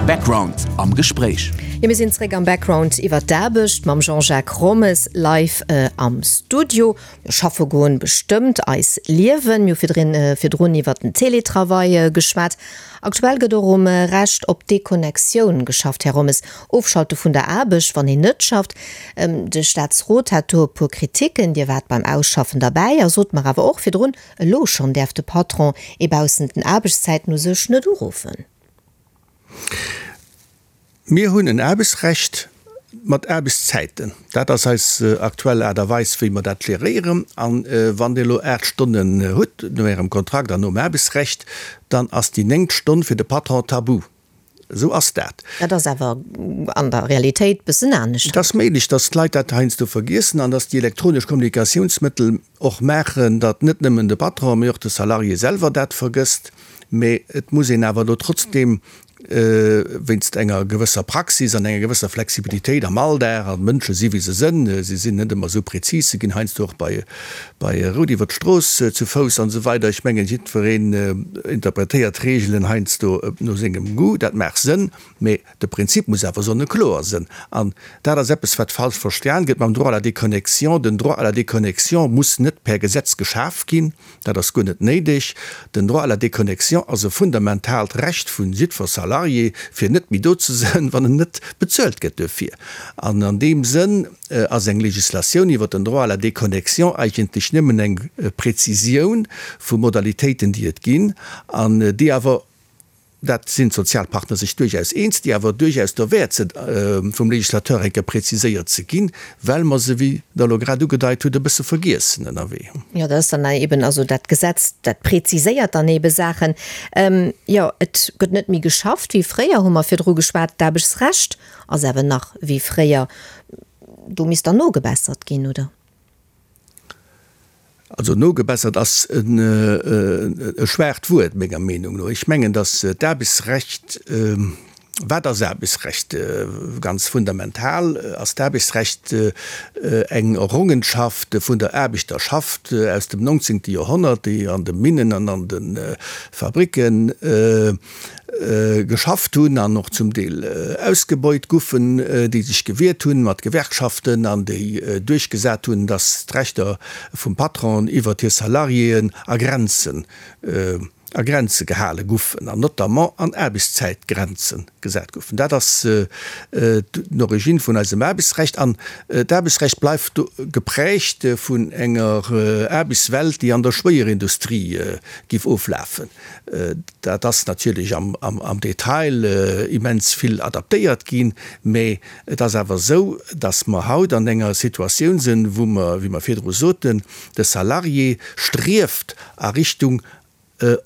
Speaker 1: Background am Gespréich.
Speaker 3: Jo, mir sinn zréck am Background iwwert d'Aarbecht mam Jean-Jacques Rommes live am Studio. Mir schaffe goen bestëmmt eis Liewen. Mir hu virdrin, virdrun iwwert den Télétravail geschwat. Aktuell gëtt och um Recht op Deconnectioun geschafft, Här Rommes. Ofschalte vun der Aarbecht, wann een net schafft. De Staatsrot hat do e puer Kriticken. Dir waart beim Ausschaffen derbäi a sot mer awer och virdrun, elo schonn däerf de Patron ee baussent den Aarbechtszäiten u sech net uruffen.
Speaker 4: Mir hunn en Aarbechtsrecht mat Aarbechtszäiten. Dat ass eis aktuell Aart a Weis, wéi mer dat geréieren. A wann Dir elo 8 Stonnen hutt no Ärem Kontrakt an nom Aarbechtsrecht, dann ass déi néngt Stonn fir de Patron tabu. Esou ass dat.
Speaker 3: Dat ass awer an der Realitéit bëssen anescht.
Speaker 4: Et ass méiglech, datt d'Leit dat heiansdo vergiessen an datt déi elektronesch Kommunikatiounsmëttel och maachen, datt net nëmmen de Patron, mee och de Salarié selwer dat vergësst. Mee et muss een awer elo trotzdeem wéinst enger gewësser Praxis an enger gewësser Flexibilitéit am Alldag, an d'Mënsche si wéi se sënn, si sinn net ëmmer esou prezis, se ginn heiansdo och bei bei Rout iwwer d'Strooss zu Fouss an esou weider. Ech mengen, jiddwereen interpretéiert d'Reegelen heiansdo no sengem Goût, dat maach sënn, mee de Prinzip muss awer sonnekloer sënn. An dat ass eppes, wat falsch verstan gëtt mam Droit à la déconnexion. Den Droit à la déconnexion muss net per Gesetz geschaf ginn. Dat ass guer net néideg. Den Droit à la déconnexion ass e fundamentaalt Recht vu jiddwer Salarié, fir net méi do ze sënn, wann en net bezuelt gëtt duerfir. An an deem Sënn ass eng Législatioun iwwert den Droit à la déconnexion eigentlech nëmmen eng Präzisioun vu Modalitéiten, déi et ginn an déi awer, dat sinn d'Sozialpartner sech duerchaus eens, déi awer duerchaus derwäert sinn, vum Législateur eng Kéier präziséiert ze ginn, well mer se, wéi Der elo grad ugedeit hutt, e bësse vergiessen ënnerwee.
Speaker 3: Jo, dat ass dann eben, also dat Gesetz, dat präziséiert dann ebe Saachen. Jo, et gëtt net méi geschafft wéi fréier, hu mer virdru geschwat. D'Aarbechtsrecht ass awer nach wéi fréier. Do misst dann nogebessert ginn, oder?
Speaker 4: Also nogebessert ass e schwaacht Wuert, menger Meenung no. Ech mengen, datt d'Aarbechtsrecht, wat ass Aarbechtsrecht? Ganz fundamental ass d'Aarbechtsrecht eng Errongenschaft vun der Aarbechterschaft aus dem 19. Joerhonnert, déi an de Minnen an an de Fabricken geschafft hunn an och zum Deel ausgebeut guffen, déi sech gewiert hunn mat Gewerkschaften an déi duerchgesat hunn, datt d'Rechter vum Patron iwwert hir Salariéen a Grenze. A Grenze gehale guffen, an notamment an Aarbechtszäitgrenze gesat guffen. Dat ass d'Origine vun eisem Aarbechtsrecht. An d'Aarbechtsrecht bleift geprägt vun enger Aarbechtswelt, déi an der Schwéierindustrie giff oflafen. Dat ass natierlech am Detail immens vill adaptéiert ginn, mä et ass awer esou, datt mer haut an enger Situatioun sinn, wou mer, wéi mer virdru soten, de Salarié strieft a Richtung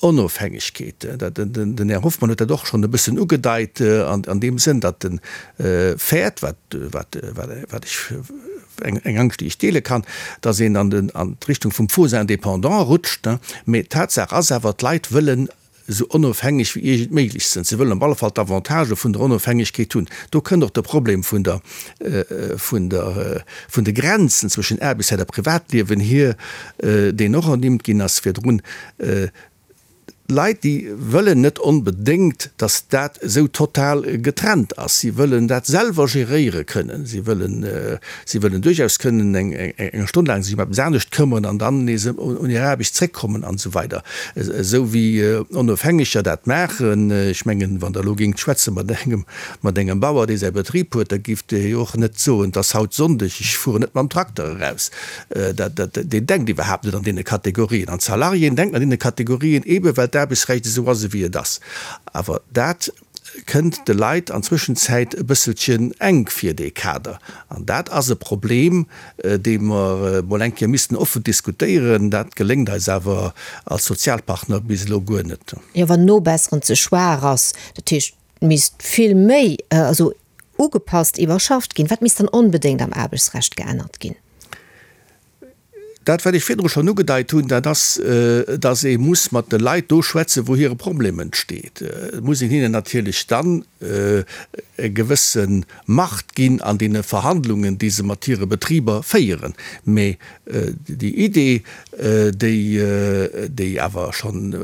Speaker 4: Onofhängegkeet. Den Här Hoffmann huet dat och schonn e bëssen ugedeit an deem Sënn, datt e fäert, wat ech, eng Angscht, déi ech deele kann, datt een an d'Richtung vum Faux indépendant rutscht. Mee d'Tatsaach ass awer, d'Leit wëllen esou onofhängeg wéi iergend méiglech sinn. Se wëllen op alle Fall d'Avantagë vun der Onofhängegkeet hunn. Do kënnt och de Problem vun der, vun der, vun de Grenzen zwëschen Aarbechtszäit a Privatliewen hier, deen och ernimmt ginn ass virdrun. D'Leit, déi wëllen net onbedéngt, datt dat esou total getrennt ass. Si wëllen dat selwer geréiere kënnen. Si wëllen, si wëllen duerchaus kënnen eng, eng Stonn laang sech ëm eppes anescht këmmeren an dann nees un hir Aarbecht zréckkommen an esou weider. Esou wéi Onofhängeger dat maachen. Ech mengen, wann Der elo géingt schwätze mat engem, mat engem Bauer, dee säi Betrib huet, da géif dee jo och net soen, 't ass haut Sonndeg, ech fueren net mam Trakter eraus. Dat, dat, deen denkt iwwerhaapt net an deene Kategorien. An d'Salariéen denken an deene Kategorien, eebe well d'Aarbechtsrecht esou ass, ewéi et ass. Awer dat kënnt de Leit an Zwëschenzäit e bësselchen enk vir, dee Kader. An dat ass e Problem, dee mer emol eng Kéier missten offen diskutéieren. Dat geléngt eis awer als Sozialpartner bis elo guer net.
Speaker 3: Jo, wann Nobesseren ze schwaach ass, dat heescht, et misst vill méi, also ugepasst, iwwerschafft ginn. Wat misst dann onbedéngt am Aarbechtsrecht geännert ginn?
Speaker 4: Dat, wat ech virdru schonn ugedeit hunn, dat ass, dass ee muss mat de Leit do schwätzen, wou hire Problem entsteet. Et muss een hinnen natierlech dann e gewësse Macht ginn an deene Verhandlungen, déi se mat hire Betriber féieren. Mä déi Idee, déi, déi awer schonn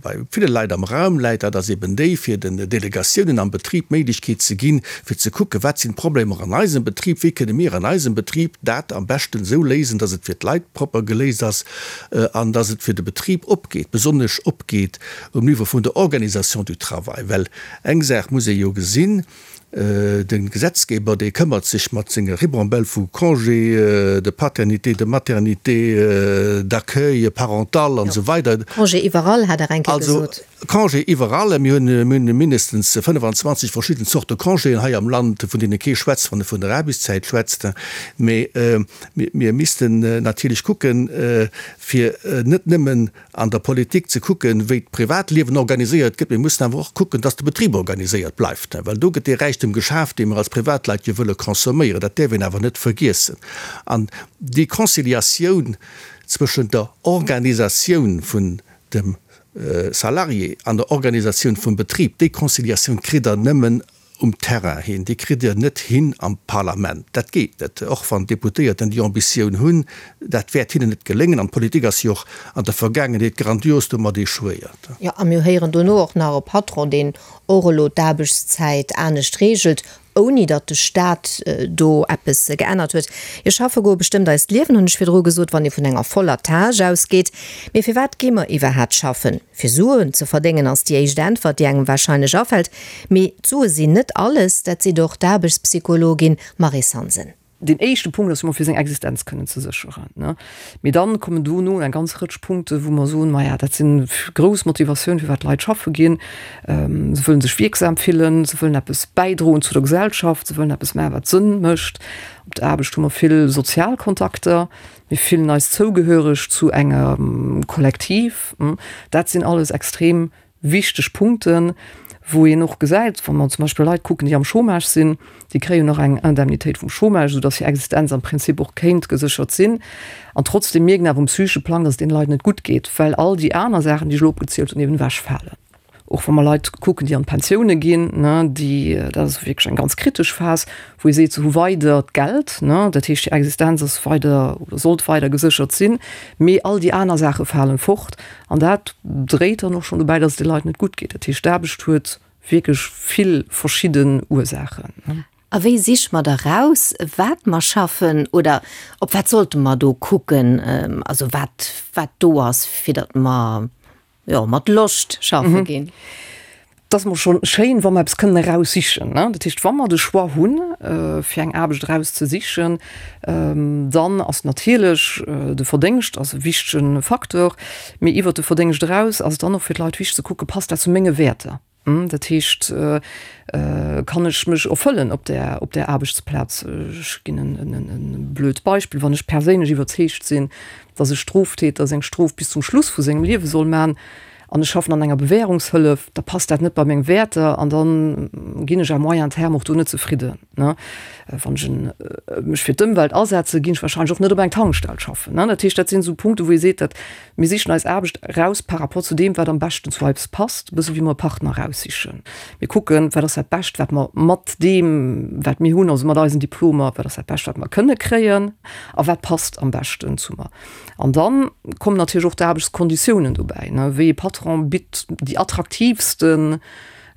Speaker 4: bei ville Leit am Raum läit, dat ass eben déi, fir den Delegatiounen am Betrib d'Méiglechkeet ze ginn, fir ze kucken, wat sinn d'Problemer an eisem Betrib, wéi kënne mir an eisem Betrib dat am beschten esou léisen, dass et fir d'Leit propper geléist ass an dass et fir de Betrib opgeet, besonnesch opgeet um Niveau vun der Organisation du travail. Well eng Saach muss ee jo gesinn, De Gesetzgeber, dee këmmert sech mat senge Ribambelle vu Congé de paternité, de maternité, d'accueil parental an esou weider.
Speaker 3: Congé iwwerall, hat Der eng Kéier gesot.
Speaker 4: Also Congé iwwerall. Mir hunn mindestens 25 verschidden Zorte Congéen hei am Land, vun deene kee schwätzt, wann e vun der Aarbechtszäit schwätzt. Mee mir missten natierlech kucken, fir net nëmmen an der Politik ze kucken, wéi d'Privatliewen organiséiert gëtt. Mir mussen awer och kucken, dass de Betrib organiséiert bleift, well do gëtt dee Räichtum geschaf, dee mir als Privatleit jo wëlle consomméieren. Dat däerf een awer net vergiessen. An déi Conciliatioun zwëschent der Organisatioun vun dem Salarié an der Organisatioun vum Betrib, déi Conciliatioun kritt Der nëmmen um Terrain hin. Déi kritt Dir net hin am Parlament. Dat geet net, och wann d'Deputéierten déi Ambitioun hunn. Dat wäert hinnen net geléngen. An d'Politik ass jo och an der Vergaangenheet grandios domat échouéiert.
Speaker 3: Jo, a mir héieren dono och nach e Patron, deen och elo d'Aarbechtszäit anescht reegelt, ouni datt de Staat do eppes geännert huet. Jo, schaffe goe bestëmmt eist Liewen, hunn ech virdru gesot, wann ee vun enger voller Tâche ausgeet. Mee firwat gi mer iwwerhaat schaffen? Fir Suen ze verdéngen ass déi éischt Äntwert, déi engem warscheinlech afält. Mee d'Sue sinn net alles, dat seet och d'Aarbechtspsychologin Maryse Hansen.
Speaker 8: Deen éischte Punkt ass jo mol fir seng Existenz kënnen ze sécheren, ne. Mee dann kommen dono eng ganz Rëtsch Punkte wou mer soen, maja dat sinn grouss Motivatioun firwat d'Leit schaffe ginn. Se wëllen sech wierksam fillen, se wëllen eppes bäidroen zu der Gesellschaft, se wëllen eppes maachen wat Sënn mécht. Op der Aarbecht hu mer vill sozial Kontakter. Mir fillen eis zougehöreg zu engem Kollektiv. Dat sinn alles extrem wichteg Punkten, wou een och gesäit, wa mer zum Beispill Leit kucken, déi am Chômage sinn, déi kréien och eng Indemnitéit vum Chômage, soudass hir Existenz am Prinzip och kéint geséchert sinn. An trotzdem mierken awer um psychesche Plang, dass et deene Leit net gutt geet, well all déi aner Saachen, déi ech elo opgezielt hunn, eben ewechfalen. Och wa mer Leit kucken, déi an d'Pensioune ginn, ne, déi, dat ass wierklech eng ganz kritesch Phas, wou ee seet, se hu weider d'Geld, ne, dat heescht, hir Existenz ass weider oder sollt weider geséchert sinn, mee all déi aner Saache falen fort. An dat dréit dann och schonn dobäi, datt et de Leit net gutt geet. Dat heescht, d'Aarbecht huet wierklech vill verschidden Ursaachen.
Speaker 3: A wéi siche mer da raus, wat mer schaffen oder op wat sollte mer do kucken, also wat, wat do ass, fir datt mer. Jo, mat Loscht schaffe ginn.
Speaker 8: Et ass emol scho schéin, wa mer eppes kënnen eraussichen. Dat heescht, wa mer de Choix hunn, fir eng Aarbecht erauszesichen, dann ass natierlech de Verdéngscht ass e wichtege Facteur. Mee iwwert de Verdéngscht eraus ass et dann och fir d'Leit wichteg ze kucken, Passt dat zu menge Wäerter? Dat heescht, kann ech mech erfëllen op där, op där Aarbechtsplaz? Ech ginn e blöd Beispill, Wann ech perséinlech iwwerzeegt sinn, datt e Stroftäter seng Strof bis zum Schluss vu sengem Liewe soll man, an ech schaffen an enger Bewährungshëllef, da passt dat net bei meng Wäerter an da ginn ech à moyen terme och do net zefridden. Wann ech mech fir d'Ëmwelt asetze, ginn ech wahrscheinlech och net op eng Tankstell schaffen. Dat heescht, dat sinn esou Punkte wou ee seet, dat mir sichen eis Aarbecht eraus par rapport zu deem, wat am beschten zu eis passt, e bësse wéi mer e Partner eraussichen. Mir kucken, wat ass dat Bescht, wat mer mat deem, wat mir hunn, also mat eisen Diplomer, wat ass dat Bescht, wat mer kënne kréien a wat passt am beschten zu mer. An dann kommen natierlech och d'Aarbechtskonditiounen dobäi, ne, wéi ee Patron bitt déi attraktiivsten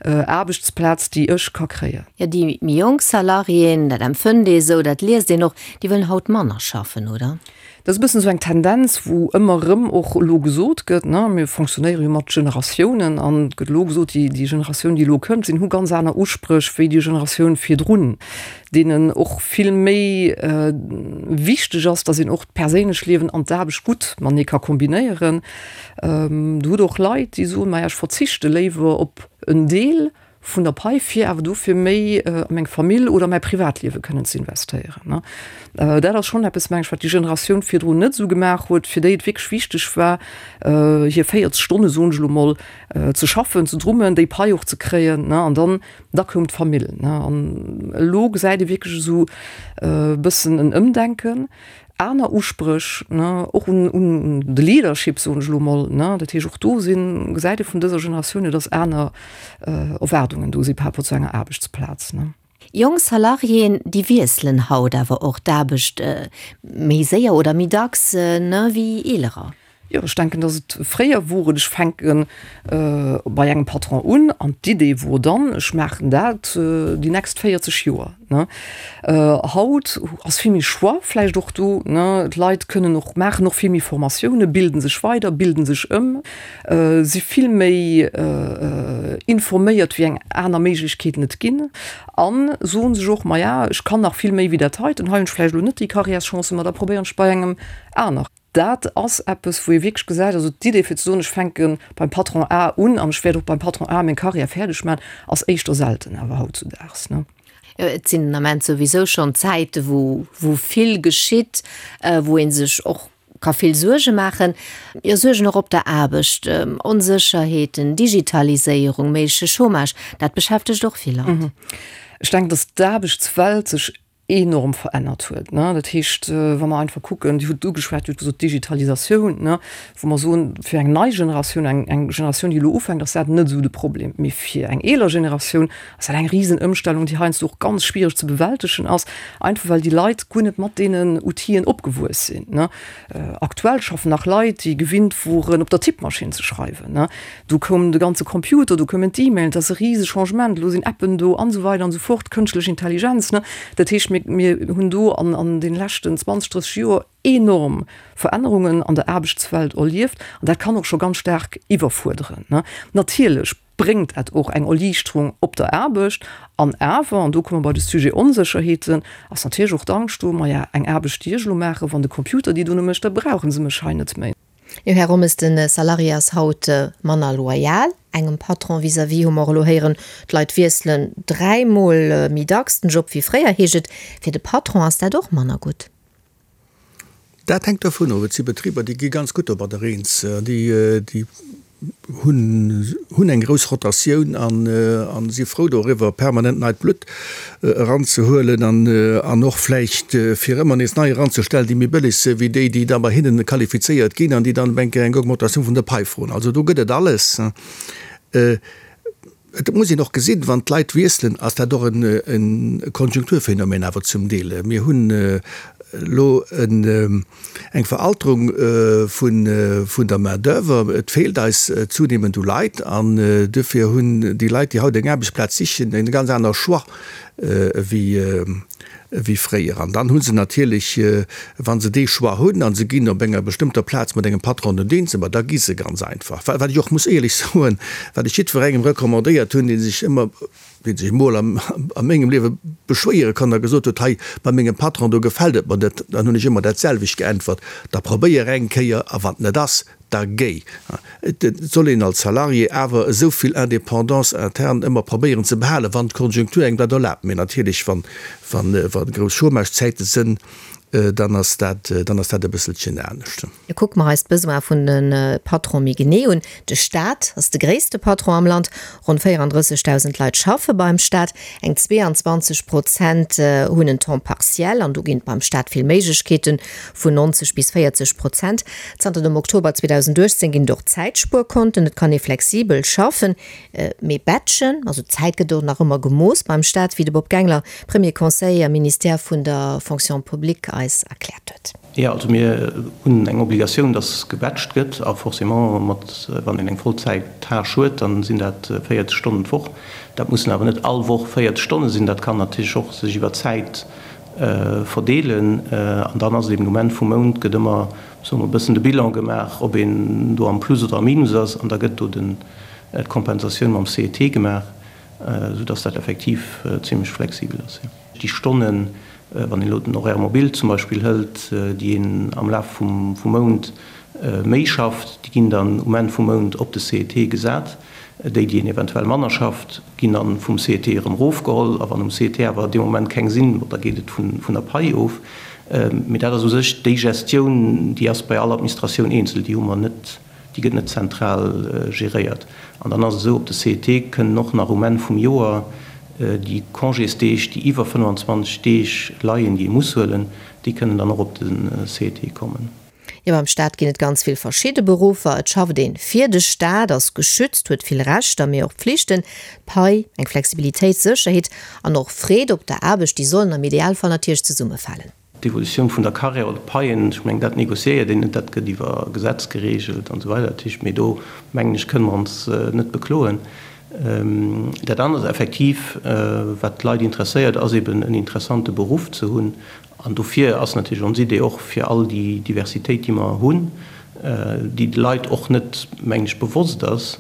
Speaker 8: Aarbechtsplaz, déi ech ka kréien.
Speaker 3: Jo, déi méi jonk Salariéen, dat empfënnt ee sou, dat liest een och, déi wëllen haut manner schaffen, oder?
Speaker 8: Dat ass e bëssen esou eng Tendenz, wou ëmmer erëm och elo gesot gëtt, ne, mir fonctionnéiere jo mat Generatiounen an et gëtt elo gesot, déi, déi Generatioun, déi elo kënnt, sinn, hu ganz aner Uspréch wéi déi Generatioun virdrun, deenen och vill méi wichteg ass, datt een och d'perséinlech Liewen an d'Aarbecht gutt matenee ka kombinéieren. Do hutt och Leit, déi soen, maja, ech verzichte léiwer op en Deel vun der Pai, fir awer dofir méi a meng Famill oder mäi Privatliewe kënnen ze investéieren. Dat ass schonn eppes, meng ech, wat déi Generatioun virdrun net esou gemaach huet, fir déi et wierklech wichteg war, hir 40 Stonne, soen ech elo mol, ze schaffen, ze drummen, déi Pai och ze kréien, an dann, da koum d'Famill. An elo gesäit ee wierklech esou e bëssen en Ëmdenken. Aner Uspréch, ne, och un, un de Leadership, soen ech elo mol, ne. Dat heescht, och do sinn, gesäit ee vun dëser Generatioun hier, dass aner Erwaardungen do si par rapport zu enger Aarbechtsplaz, ne.
Speaker 3: Jonk Salariéen, déi wiesselen haut awer och d'Aarbecht méi séier oder méi dacks, ne, wéi eelerer.
Speaker 8: Jo, ech denken, dass et fréier wor et, ech fänke bei engem Patron un an d'Idee wor dann, ech maachen dat déi nächst 40 Joer. Haut ass vill méi Choix vläicht och do, d'Leit kënnen och, maachen och vill méi Formatiounen, bilden sech weider, bilden sech ëm, si vill méi informéiert, wéi eng aner Méiglechkeeten et ginn a soen sech och, maja, ech kann nach vill méi wéi dat heiten, hei hunn ech vläicht elo net déi Karriärschancen, ma da probéieren ech bei engem aner. Dat ass eppes, wou ee wierklech gesäit, also d'Idee fir ze soen, ech fänke beim Patron A un an ech wäert och beim Patron A meng Karriär fäerdeg maachen, ass éischter selten awer hautzudaags.
Speaker 3: Jo, et sinn den Ament souwisou schonn Zäite wou wou vill geschitt, wou ee sech och ka vill Suerge maachen. Jo, Suergen och op der Aarbecht, Onsécherheeten, Digitaliséierung, méigleche Chômage, dat beschäftegt och vill Leit.
Speaker 8: Ech denken, datt d'Aarbechtswelt sech enorm verännert huet. Dat heescht, wa mer einfach kucken, Dir hutt et ugeschwat, Dir hutt gesot Digitalisatioun, wou mer soen, fir eng nei Generatioun, eng eng Generatioun, déi elo ufänkt, ass dat net esou de Problem. Mee fir eng eeler Generatioun ass dat eng Risenëmstellung, déi heiansdo och ganz schwiereg ze bewältegen ass, einfach well déi Leit guer net mat deenen Outile opgewuess sinn. Aktuell schaffen nach Leit, déi gewinnt woren, op der Tippmaschinn ze schreiwen. Do koum de ganze Computer, do koumen d'E-Mailen, dat ass e rise Changement, elo sinn Appen do an esou weider an esou fort, kënschtlech Intelligenz. Dat heescht, mir, mir hunn do an, an deene leschten 20, 30 Joer enorm Verännerungen an der Aarbechtswelt erlieft an dat kann och scho ganz staark iwwerfuerderen. Natierlech bréngt dat och eng Erliichterung op der Aarbecht an awer, an do komme mer bei de Sujet Onsécherheeten, ass natierlech och d'Angscht do, maja, eng Aarbecht, déi ech elo maachen, wann de Computer déi dono mécht, da brauche se mech hei net méi.
Speaker 3: Jo, Här Rommes, de Salarié ass haut manner loyal engem Patron vis-à-vis, hu mer och elo héieren. D'Leit wiesselen dräimol méi dacks den Job wéi fréier, heescht et. Fir de Patron ass dat och manner gutt.
Speaker 4: Dat hänkt dovun of. Et si Betriber, déi gi ganz gutt domadder eens. Déi hunn eng grouss Rotatioun a si frou doriwwer, permanent neit Blutt eranzehuelen an och vläicht fir ëmmer nees nei eranzestellen, déi méi bëlleg si wéi déi, déi da bei hinnen qualifizéiert ginn an déi dann eng Kéier eng Augmentatioun vun der Pai froen. Also do gëtt et alles. Et muss een och gesinn, wann d'Leit wiesselen, ass dat och e Konjunkturphänomen awer zum Deel. Mir hunn elo eng Veralterung vun der Main d'oeuvre. Et feelt eis zunehmend u Leit an duerfir hunn déi Leit, déi haut eng Aarbechtsplaz sichen, e ganz aner Choix wéi. wéi fréier. An dann hu se natierlech, wa se dee Choix hunn a se ginn op enger bestëmmter Plaz mat engem Patron net eens, ma da gi se ganz einfach. Wat ech och muss éierlech soen, wat ech jiddwerengem recommandéiert hunn, dee sech ëmmer, dee sech emol a mengem Liewe beschwéiere kann a gesot huet, hei bei mengem Patron, do gefält et mer net, dann hunn ech ëmmer dat selwecht geäntwert, da probéier eng Kéier a wann et net ass, da géi. Et soll een als Salarié awer esou vill Indépendance interne ëmmer probéieren ze behalen, wann d'Konjunktur engem dat erlaabt. Mee natierlech, wa grouss Chômagezäite sënn, dann ass dat, dann ass dat e bësselchen anescht.
Speaker 3: Kucke mer eis d'Besoine vun de Patron méi genee un. De Staat ass de gréisste Patron am Land. Ronn 34.000 Leit schaffe beim Staat. Eng 22 Prozent hunn en Temps partiel an do ginn et beim Staat vill Méiglechkeeten, vun 90 bis 40 Prozent. Zanter dem Oktober 2018 ginn et och Zäitspuerkonten, et kann ee flexibel schaffen, mee batchen, also d'Zäit gëtt och nach ëmmer gemooss beim Staat, wéi de Bob Gangler, Premier Conseiller am Ministère vun der Fonction publique, eis erkläert huet.
Speaker 7: Jo, also mir hunn eng Obligatioun, dass gebatcht gëtt a forcément mat, wann een eng Vollzäit-Tâche huet, dann sinn dat 40 Stonnen d'Woch. Dat mussen awer net all Woch 40 Stonne sinn, dat kann natierlech och sech iwwer d'Zäit verdeelen. An dann ass et eben um Enn vum Mount gëtt ëmmer, soe mer, e bëssen de Bilan gemaach, ob een do am Plus oder am Minus ass an da gëtt do den, d'Kompensatioun mam CET gemaach, soudass dat effektiv zimlech flexibel ass, jo. Déi Stonnen, wann een elo den Horaire mobile zum Beispill hëlt, déi een am Laf vum Mount méi schafft, déi ginn dann um Enn vum Mount op de CET gesat. Déi, déi een eventuell manner schafft, ginn dann vum CET erëm erofgeholl. A wann um CET awer dee Moment keng sinn, bon, da geet et vun der Pai of. Mee dat ass u sech déi Gestioun, déi ass bei all Administratioun eenzel, déi hu mer net. Déi gëtt net zentral geréiert. An dann ass et esou, op de CET kënnen och nach um Enn vum Joer déi Congésdeeg, déi iwwer 25 Deeg leien, déi ee muss huelen, déi kënnen dann och op de CET kommen.
Speaker 3: Jo, beim Staat ginn et ganz vill verschidde Beruffer. Et schafft een fir de Staat, ass geschützt, huet vill Rechter, mee och Pflichten. D'Pai, eng Flexibilitéit, Sécherheet an och Freed op der Aarbecht, déi sollen am Idealfall natierlech zesummefalen.
Speaker 7: D'Evolutioun vun der Carrière oder d'Paien, ech mengen, dat négociéiert een net, dat gëtt iwwer Gesetz geregelt an esou weider. Dat heescht, mee do, mengen ech, kënne mer ons net bekloen. Dat anert effektiv, wat d'Leit interesséiert, ass eben en interessante Beruff ze hunn. An dofir ass natierlech ons Idee och, fir all déi Diversitéit, déi mer hunn, déi de Leit och net, mengen ech, bewosst ass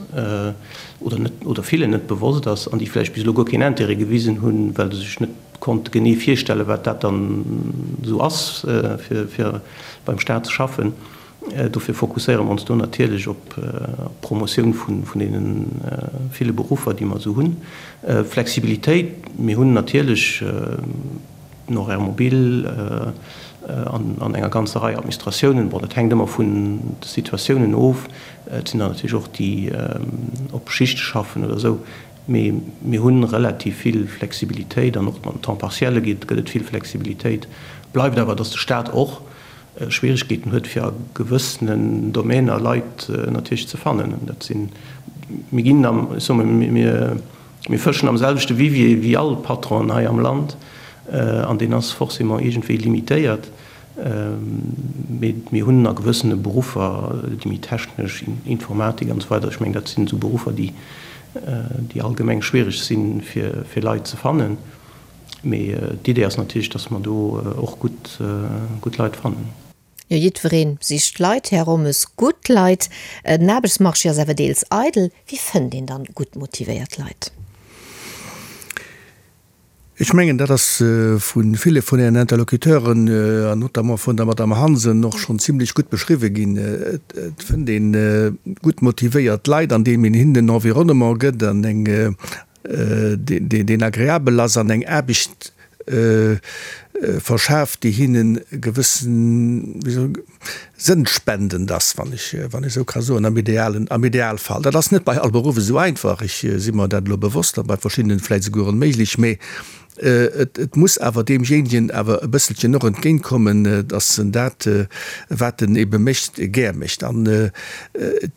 Speaker 7: oder net, oder villen net bewosst ass an déi vläicht bis elo guer keen Intérêt gewisen hunn, well se sech net Konnt genee virstellen, wat dat dann esou ass, fir beim Staat ze schaffen. Dofir fokusséiere mer ons do natierlech op d'Promotioun vun deene ville Beruffer, déi mer esou hunn. Flexibilitéit, mir hunn natierlech den Horaire mobile an enger ganzer Rei Administratiounen. Bon, dat hänkt ëmmer vun de Situatiounen of. Et sinn der natierlech och, déi op Schichte schaffen oder esou. Mee mir hu relativ vill Flexibilitéit an och mam Temps partiel gëtt et vill Flexibilitéit. Bleift awer, datt de Staat och Schwierigkeeten huet, fir a gewëssenen Domainer Leit natierlech ze fannen. Dat sinn, mir ginn am, ech soe mol, mir, mir fëschen am selwechte Vivier wéi all Patronen hei am Land an deen ass forcément iergendwéi limitéiert. Mee mir hunn a gewëssene Beruffer, déi méi technesch, Informatik an esou weider, ech mengen, dat sinn esou Beruffer, déi, déi allgemeng schwiereg sinn, fir, fir Leit ze fannen. Mee d'Idee ass natierlech, datt mer do och gutt, gutt Leit fannen.
Speaker 3: Jo, jiddweree sicht Leit, Här Rommes, gutt Leit. Den Aarbechtsmarché ass awer deels eidel. Wéi fënnt een dann gutt motivéiert Leit?
Speaker 4: Ech mengen, dat ass vu ville vun Ären Interlocuteuren, an notamment vun der Madame Hansen, och schonn zimlech gutt beschriwwen ginn. Et fënnt ee gutt motivéiert Leit, andeem een hinnen en Environnement gëtt, an eng, deen agreabel ass, an eng Aarbecht verschaaft, déi hinnen e gewëssen, wéi soll ech, sënnspendend ass, wann ech, wann ech esou ka soen, am idealen, am Idealfall. Dat ass net bei all Beruff esou einfach, ech si mer dat elo bewosst, a bei verschiddenen vläicht esouguer onméiglech, mä et, et muss awer deemjéinegen awer e bësselchen och entgéintkommen, dass en dat, wat en ebe mécht, gär mécht. An et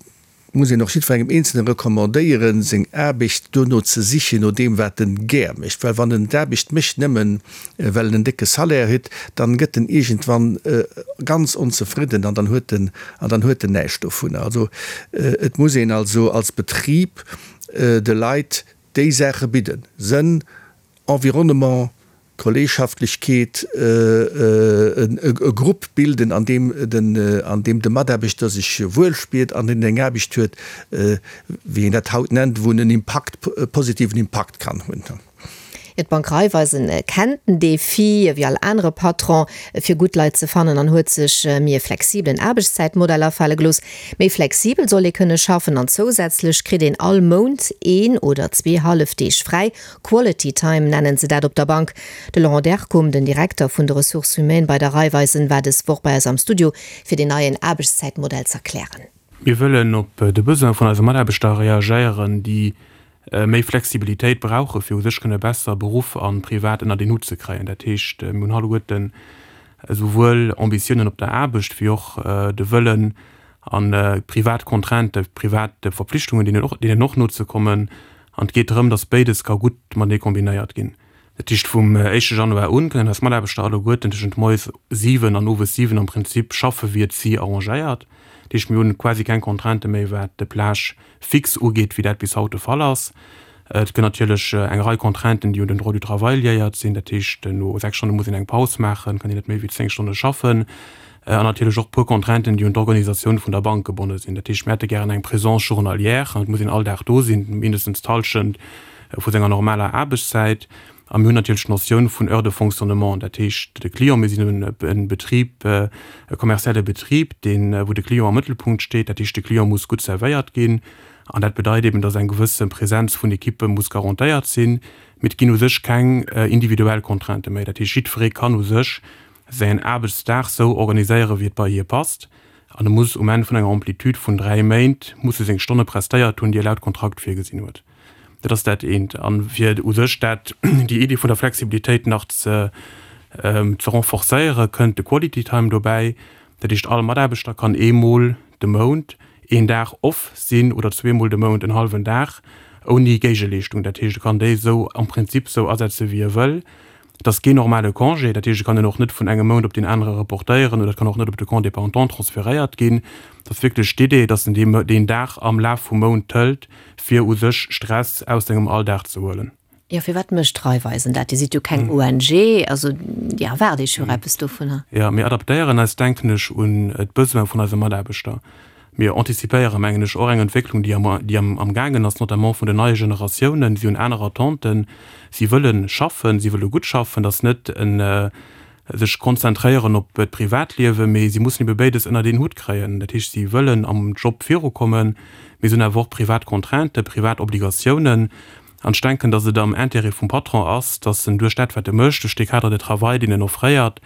Speaker 4: muss een och jiddwerengem Eenzelne recommandéieren, seng Aarbecht dono ze sichen, no deem wat en gär mécht, well wann en d'Aarbecht mécht nëmmen well en en décke Salaire huet, dann gëtt en iergendwann ganz onzefridden an dann huet en an dann huet en näischt dovunner. Also et muss een also als Betrib de Leit déi Saache bidden, Sënn, Environnement. Kolleegschaftlechkeet, e Grupp bilden, an deem den, an deem de Mataarbechter sech wuel spiert an deen eng Aarbecht huet, wéi een dat haut nennt, wou en en Impakt, e positiven Impakt kann hunn.
Speaker 3: Jo, d'Bank Raiffeisen kennt den Defi, wéi all anere Patron, fir gutt Leit ze fannen an huet sech méi e flexibelen Aarbechtszäitmodell afale gelooss. Méi flexibel soll ee kënne schaffen an zousätzlech kritt een all Mount een oder zwee hallef Deeg fräi. Quality Time nennen se dat op der Bank. De Laurent Dercum, den Direkter vun de Ressources humaines bei der Raiffeisen, war dës Woch bei eis am Studio, fir deen neien Aarbechtszäitmodell z'erklären.
Speaker 6: Mir wëllen op de Besoin vun eise Mataarbechter reagéieren, déi méi Flexibilitéit brauche fir u sech kënne besser Beruff a Privat ënnert een Hutt ze kréien. Dat heescht, mir hunn alleguerten esouwuel Ambitiounen op der Aarbecht wéi och de Wëllen a privat Contrainten, privat Verpflichtungen, deenen och nozekommen. An et geet drëm, datt béides ka gutt matenee kombinéiert ginn. Dat heescht, vum éischte Januar un kënnen eis Mataarbechter alleguerten tëschent moies 7 an owes 7 am Prinzip schaffe wéi et si arrangéiert. Dat heescht, mir hunn quasi keng Contraintë méi wat de Plage fixe ugeet, wéi dat bis haut de Fall ass. Et gëtt natierlech eng Rei Contrainten, déi un den Droit du travail liéiert sinn. Dat heescht, no 6 Stonne muss een eng Paus maachen, kann een net méi wéi 10 Stonne schaffen. An natierlech och e puer Contrainten, déi un d'Organisatioun vun der Bank gebonne sinn. Dat heescht, mir hätte gären eng Présence journalière, et muss een all Dag do sinn, mindestens d'Hallschent vu senger normaler Aarbechtszäit. A mir hunn natierlech d'Notioun vun Heures de fonctionnement, dat heescht de Client, mir sinn e Betrib, e kommerzielle Betrib, deen, wou de Client am Mëttelpunkt steet, dat heescht de Client muss gutt servéiert ginn. An dat bedeit eben, dass eng gewësse Präsenz vun Ekippe muss garantéiert sinn. Mee et ginn u sech keng individuell Contraintë méi. Dat heescht, jiddweree kann u sech säin Aarbechtsdag sou organiséieren, wéi et bei hie passt. An e muss um Enn vun enger Amplitude vun 3 Méint muss e seng Stonne prestéiert hunn, déi e laut Kontrakt virgesinn huet. Dat ass dat eent. A fir u sech dat, déi Iddi vun der Flexibilitéit nach ze ze renforcéieren, kënnt de Quality Time dobäi. Dat heescht, all Mataarbechter kann eemol de Mount een Dag off sinn oder zweemol de Mount en hallwen Dag ouni Géigeleeschtung. Dat heescht, e kann déi esou am Prinzip esou asetze wéi e wëll. Et ass keen normale Congé, dat heescht, et kann een och net vun engem Mount op deen anere reportéieren oder et kann och net op de Compte dépendant transferéiert ginn. Et ass wierklech d'Idee, dass en deen Dag am Laf vum Mount hëlt, fir u sech Stress aus sengem Alldag ze huelen.
Speaker 3: Jo, firwat mécht Raiffeisen dat? Dir sidd jo keng ONG, also Dir erwaart Iech jo och eppes dovunner.
Speaker 6: Jo, mir adaptéieren eis, denken ech, un d'Besoin vun eise Mataarbechter. Mir antizipéieren, mengen ech, och eng Entwécklung, déi am, déi am, amgaangen ass, notamment vun den neie Generatiounen. Si hunn aner Attenten. Si wëlle schaffen, si wëlle gutt schaffen. Dat ass net en sech konzentréieren op d'Privatliewen, mee si mussen ebe béides ënnert een Hutt kréien. Dat heescht, si wëllen am Job virukommen, mee si hunn awer och privat Contrainten, privat Obligatiounen. An ech denken, datt et am Intérêt vum Patron ass, datt en duerch dat, wat e mécht, duerch dee Cadre de travail, deen en offréiert,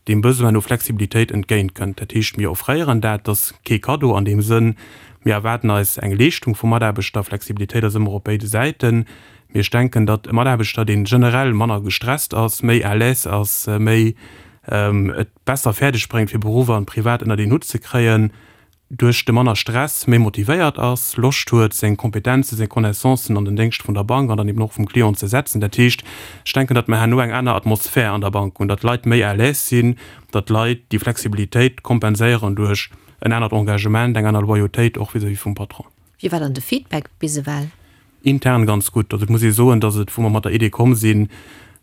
Speaker 6: deem Besoin no Flexibilitéit entgéintkënnt. Dat heescht, mir offréieren dat, dat ass kee Kaddo an deem Sënn, mir erwaarden eis eng Leeschtung vum Mataarbechter. Flexibilitéit ass ëmmer op béide Säiten. Mee ech denken, datt e Mataarbechter, dee generell manner gestresst ass, méi à l'aise ass, méi et besser fäerdeg bréngt, fir Beruff an Privat ënnert een Hutt ze kréien, duerch de manner Stress méi motivéiert ass, Loscht huet, seng Kompetenzen, seng Connaissancen an den Déngscht vun der Bank an dann eben och vum Client ze setzen. Dat heescht, ech denken, datt mer herno eng aner Atmosphär an der Bank hunn, datt d'Leit méi à l'aise sinn, datt d'Leit déi Flexibilitéit kompenséieren duerch en anert Engagement, eng aner Loyautéit och vis-à-vis vum Patron.
Speaker 3: Wéi war dann de Feedback bis ewell?
Speaker 6: Intern ganz gutt. Also et muss ee soen, datt et, wou mer mat der Idee komm sinn,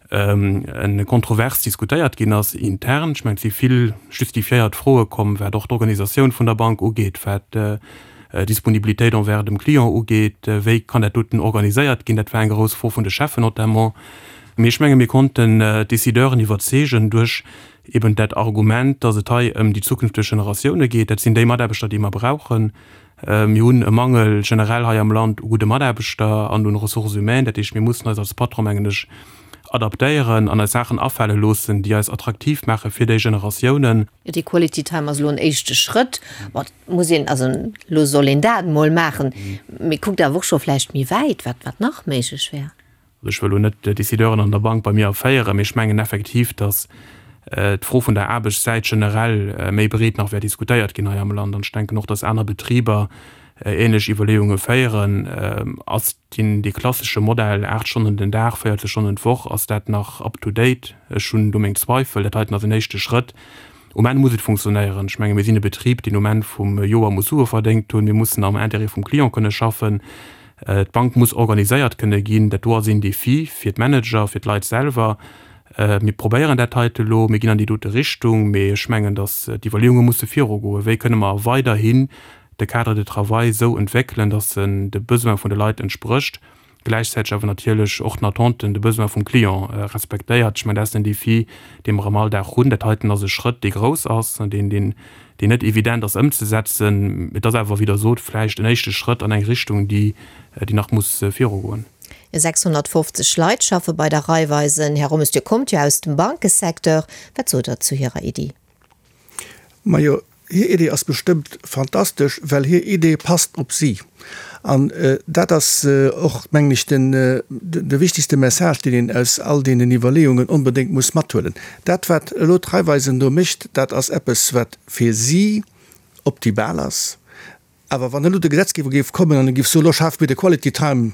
Speaker 6: e kontrovers diskutéiert ginn ass intern. Ech mengen, et si vill justifiéiert Froe komm, wat och d'Organisatioun vun der Bank ugeet, wat d'Disponibilitéit envers dem Client ugeet, wéi kann dat doten organiséiert ginn. Dat war eng grouss Fro vun de Cheffen notamment. Mee ech menge mir konnten d'Décideuren iwwerzeegen duerch eben dat Argument, datt et hei ëm déi zukünfteg Generatioune geet. Dat sinn déi Mataarbechter, déi mer brauchen. Mir hunn e Mangel generell hei am Land u gudde Mataarbechter an un Ressources humaines. Dat heescht, mir mussen eis als Patron, mengen ech, adaptéieren an eis Saachen afale loossen, déi eis attraktiv maache fir déi Generatiounen.
Speaker 3: Jo, dee Quality Time ass elo en éischte Schrëtt. Bon, et muss een, also elo soll een dat emol maachen, mee kuckt awer och scho vläicht méi wäit, wat, wat nach méiglech wär.
Speaker 6: Also ech wëll elo net d'Décideuren an der Bank bei mir erféieren, mee ech mengen effektiv, datt d'Fro vun der Aarbechtszäit generell méi breet nach wäert diskutéiert ginn hei am Land. An ech denken och, datt aner Betriber ähnlech Iwwerleeunge féieren. Ass deen, dee klassesche Modell, 8 Stonnen den Dag, 40 Stonnen d'Woch, ass dat nach up to date? Ech hunn do meng Zweifel. Dat heiten ass en éischte Schrëtt. Um Enn muss et funktionéieren. Ech menge mir sinn e Betrib, deen um Enn vum Joer muss Sue verdéngt hunn. Mir mussen am Intérêt vum Client kënne schaffen. D'Bank muss organiséiert kënne ginn. Dat do ass een Defi fir d'Manager, fir d'Leit selwer. Mir probéieren dat heite elo, mir ginn an déi dote Richtung, mee ech mengen, datt d'Iwwerleeunge musse virugoen, wéi kënne mer weiderhin de Cadre de travail esou entwéckelen, datt en de Besoin vun de Leit entsprécht, gläichzäiteg awer natierlech och den Attenten, de Besoin vum Client respektéiert. Ech mengen, dat ass den Défi, dee mer am Alldag hunn. Dat heiten ass e Schrëtt, dee grouss ass, deen, deen, deen net evident ass ëmzesetzen. Et ass awer, wéi Der sot, vläicht en éischte Schrëtt an eng Richtung, déi, déi nach muss virugoen.
Speaker 3: 650 Leit schaffe bei der Raiffeisen. Här Rommes, Dir kommt jo aus dem Bankesecteur. Wat sot Der zu hirer Iddi?
Speaker 4: Majo, hir Idee ass bestëmmt fantastesch, well hir Idee passt op si. An dat ass och, mengen ech, den, de wichtigste Message, deen een aus all deenen Iwwerleeungen onbedéngt muss mathuelen. Dat, wat elo d'Raiffeisen do mécht, dat ass eppes, wat fir si optimal ass. Awer wann elo de Gesetzgeber géif kommen an e géif soen, elo schafe mir de Quality Time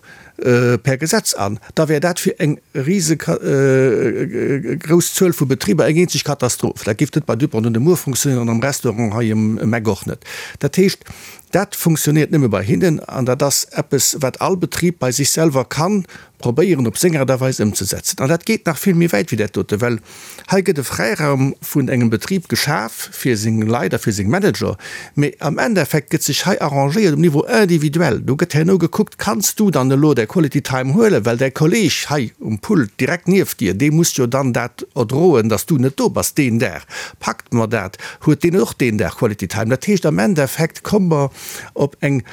Speaker 4: per Gesetz an, da wär dat fir eng rise grouss Zuel vu Betriber eng eenzeg Katastroph. Dat géif net bei Dupont de Nemours funktionéieren an am Restaurant hei ëm Eck och net. Dat heescht, dat funktionéiert nëmme bei hinnen an dat ass eppes, wat all Betrib bei sech selwer kann probéieren op seng Aart a Weis ëmzesetzen. An dat geet nach vill méi wäit wéi dat dote, well hei gëtt e Fräiraum vun engem Betrib geschaf fir seng Leit a fir seng Manager, mee am Endeffekt gëtt sech hei arrangéiert um Niveau individuel. Do gëtt herno gekuckt, Kanns du dann elo däi Quality Time huelen, well däi Kolleeg hei um Pult direkt nieft dir, dee muss jo dann dat erdroen, dass du net do bass deen Dag. Packt mer dat? Huet deen och deen Dag Quality Time? Dat heescht, am Endeffekt komme mer op eng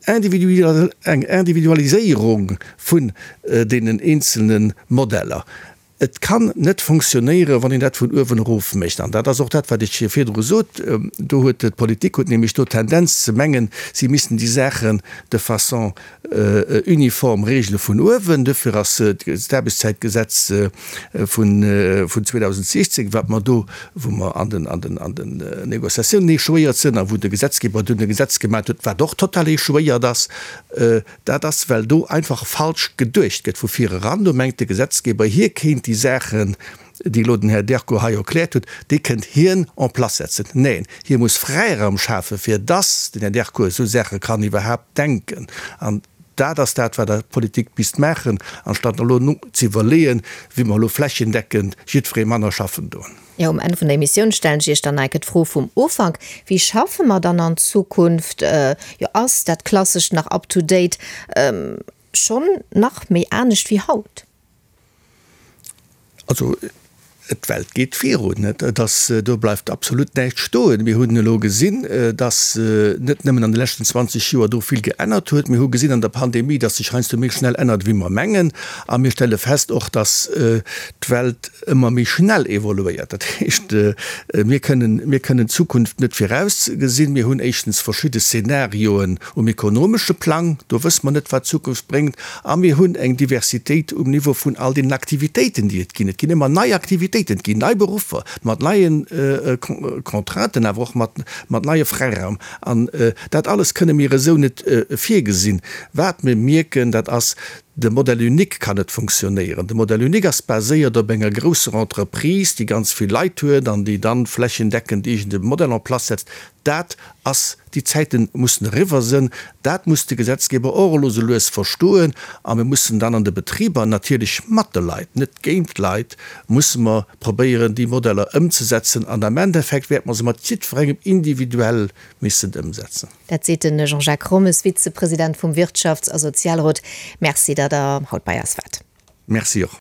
Speaker 4: Eng Individualiséierung vun deenen eenzelne Modeller. Et kann net fonctionnéieren, wann een dat vun uewen erof mécht. An dat ass och dat, wat ech virdru sot. Do huet d'Politik huet nämlech do d'Tendenz ze mengen, si missten déi Saachen de façon uniform regele vun uewen. Duerfir ass d'Aarbechtszäitgesetz vun 2016, wat mer do, wou mer an den, an den, an den Négociatiounen échouéiert sinn a wou de Gesetzgeber dunn e Gesetz gemat huet, wat och total échouéiert ass, dat ass, well do einfach falsch geduecht gëtt vu vir eran. Do mengt de Gesetzgeber, hie kéint déi Saachen, déi elo den Här Derco hei erkläert huet, déi kënnt hien en place setzen. Neen, hie muss Fräiraum schafen, fir dass den Här Derco esou Saache kann iwwerhaapt denken. An Dat ass dat, wat der Politik misst maachen, anstatt elo ze iwwerleeën, wéi mer elo flächendeckend jiddweree manner schaffen doen.
Speaker 3: Jo, um Enn vun der Emissioun stellen ech Iech dann enke d'Fro vum Ufank, Wéi schaffe mer dann an Zukunft? Jo, ass dat Klassescht nach up to date? Schonn nach méi anescht wéi haut?
Speaker 4: Also, d'Welt geet virun, et ass, do bleift absolut näischt stoen. Mir hunn elo gesinn, dass net nëmmen an de leschten 20 Joer do vill geännert huet, mir hu gesinn an der Pandemie, dass sech heiansdo méi schnell ännert wéi mer mengen. A mir stelle fest och, dass d'Welt ëmmer méi schnell evoluéiert. Dat heescht, mir kënnen, mir kënnen d'Zukunft net virausgesinn. Mir hunn éischtens verschidde Szenarioen um ekonomesche Plang, do wësse mer net, wat d'Zukunft bréngt. A mir hunn eng Diversitéit um Niveau vun all deenen Aktivitéiten, déi et ginn. Et ginn ëmmer nei Aktivitéiten, et ginn nei Beruffer mat neie Contrainten, awer och mat neie Fräiraum. An dat alles kënne mir esou net virgesinn. Wat mir mierken, dat ass, De Modèle unique kann net funktionéieren. De Modèle unique ass baséiert op enger grousser Entreprise, déi ganz vill Leit huet an déi dann flächendeckend iergend e Modell en place setzt. Dat ass, déi Zäite mussen eriwwer sënn. Dat muss de Gesetzgeber och elo sou lues verstoen. A mir mussen dann an de Betriber, natierlech mat de Leit, net géint d'Leit, musse mer probéieren, déi Modeller ëmzesetzen. An am Endeffekt wäerte mer se mat jiddwerengem individuell missen ëmsetzen.
Speaker 3: Dat seet de Jean-Jacques Rommes, Vizepresident vum Wirtschafts a Sozialrot. Merci, datt Der haut bei eis waart.
Speaker 4: Merci och.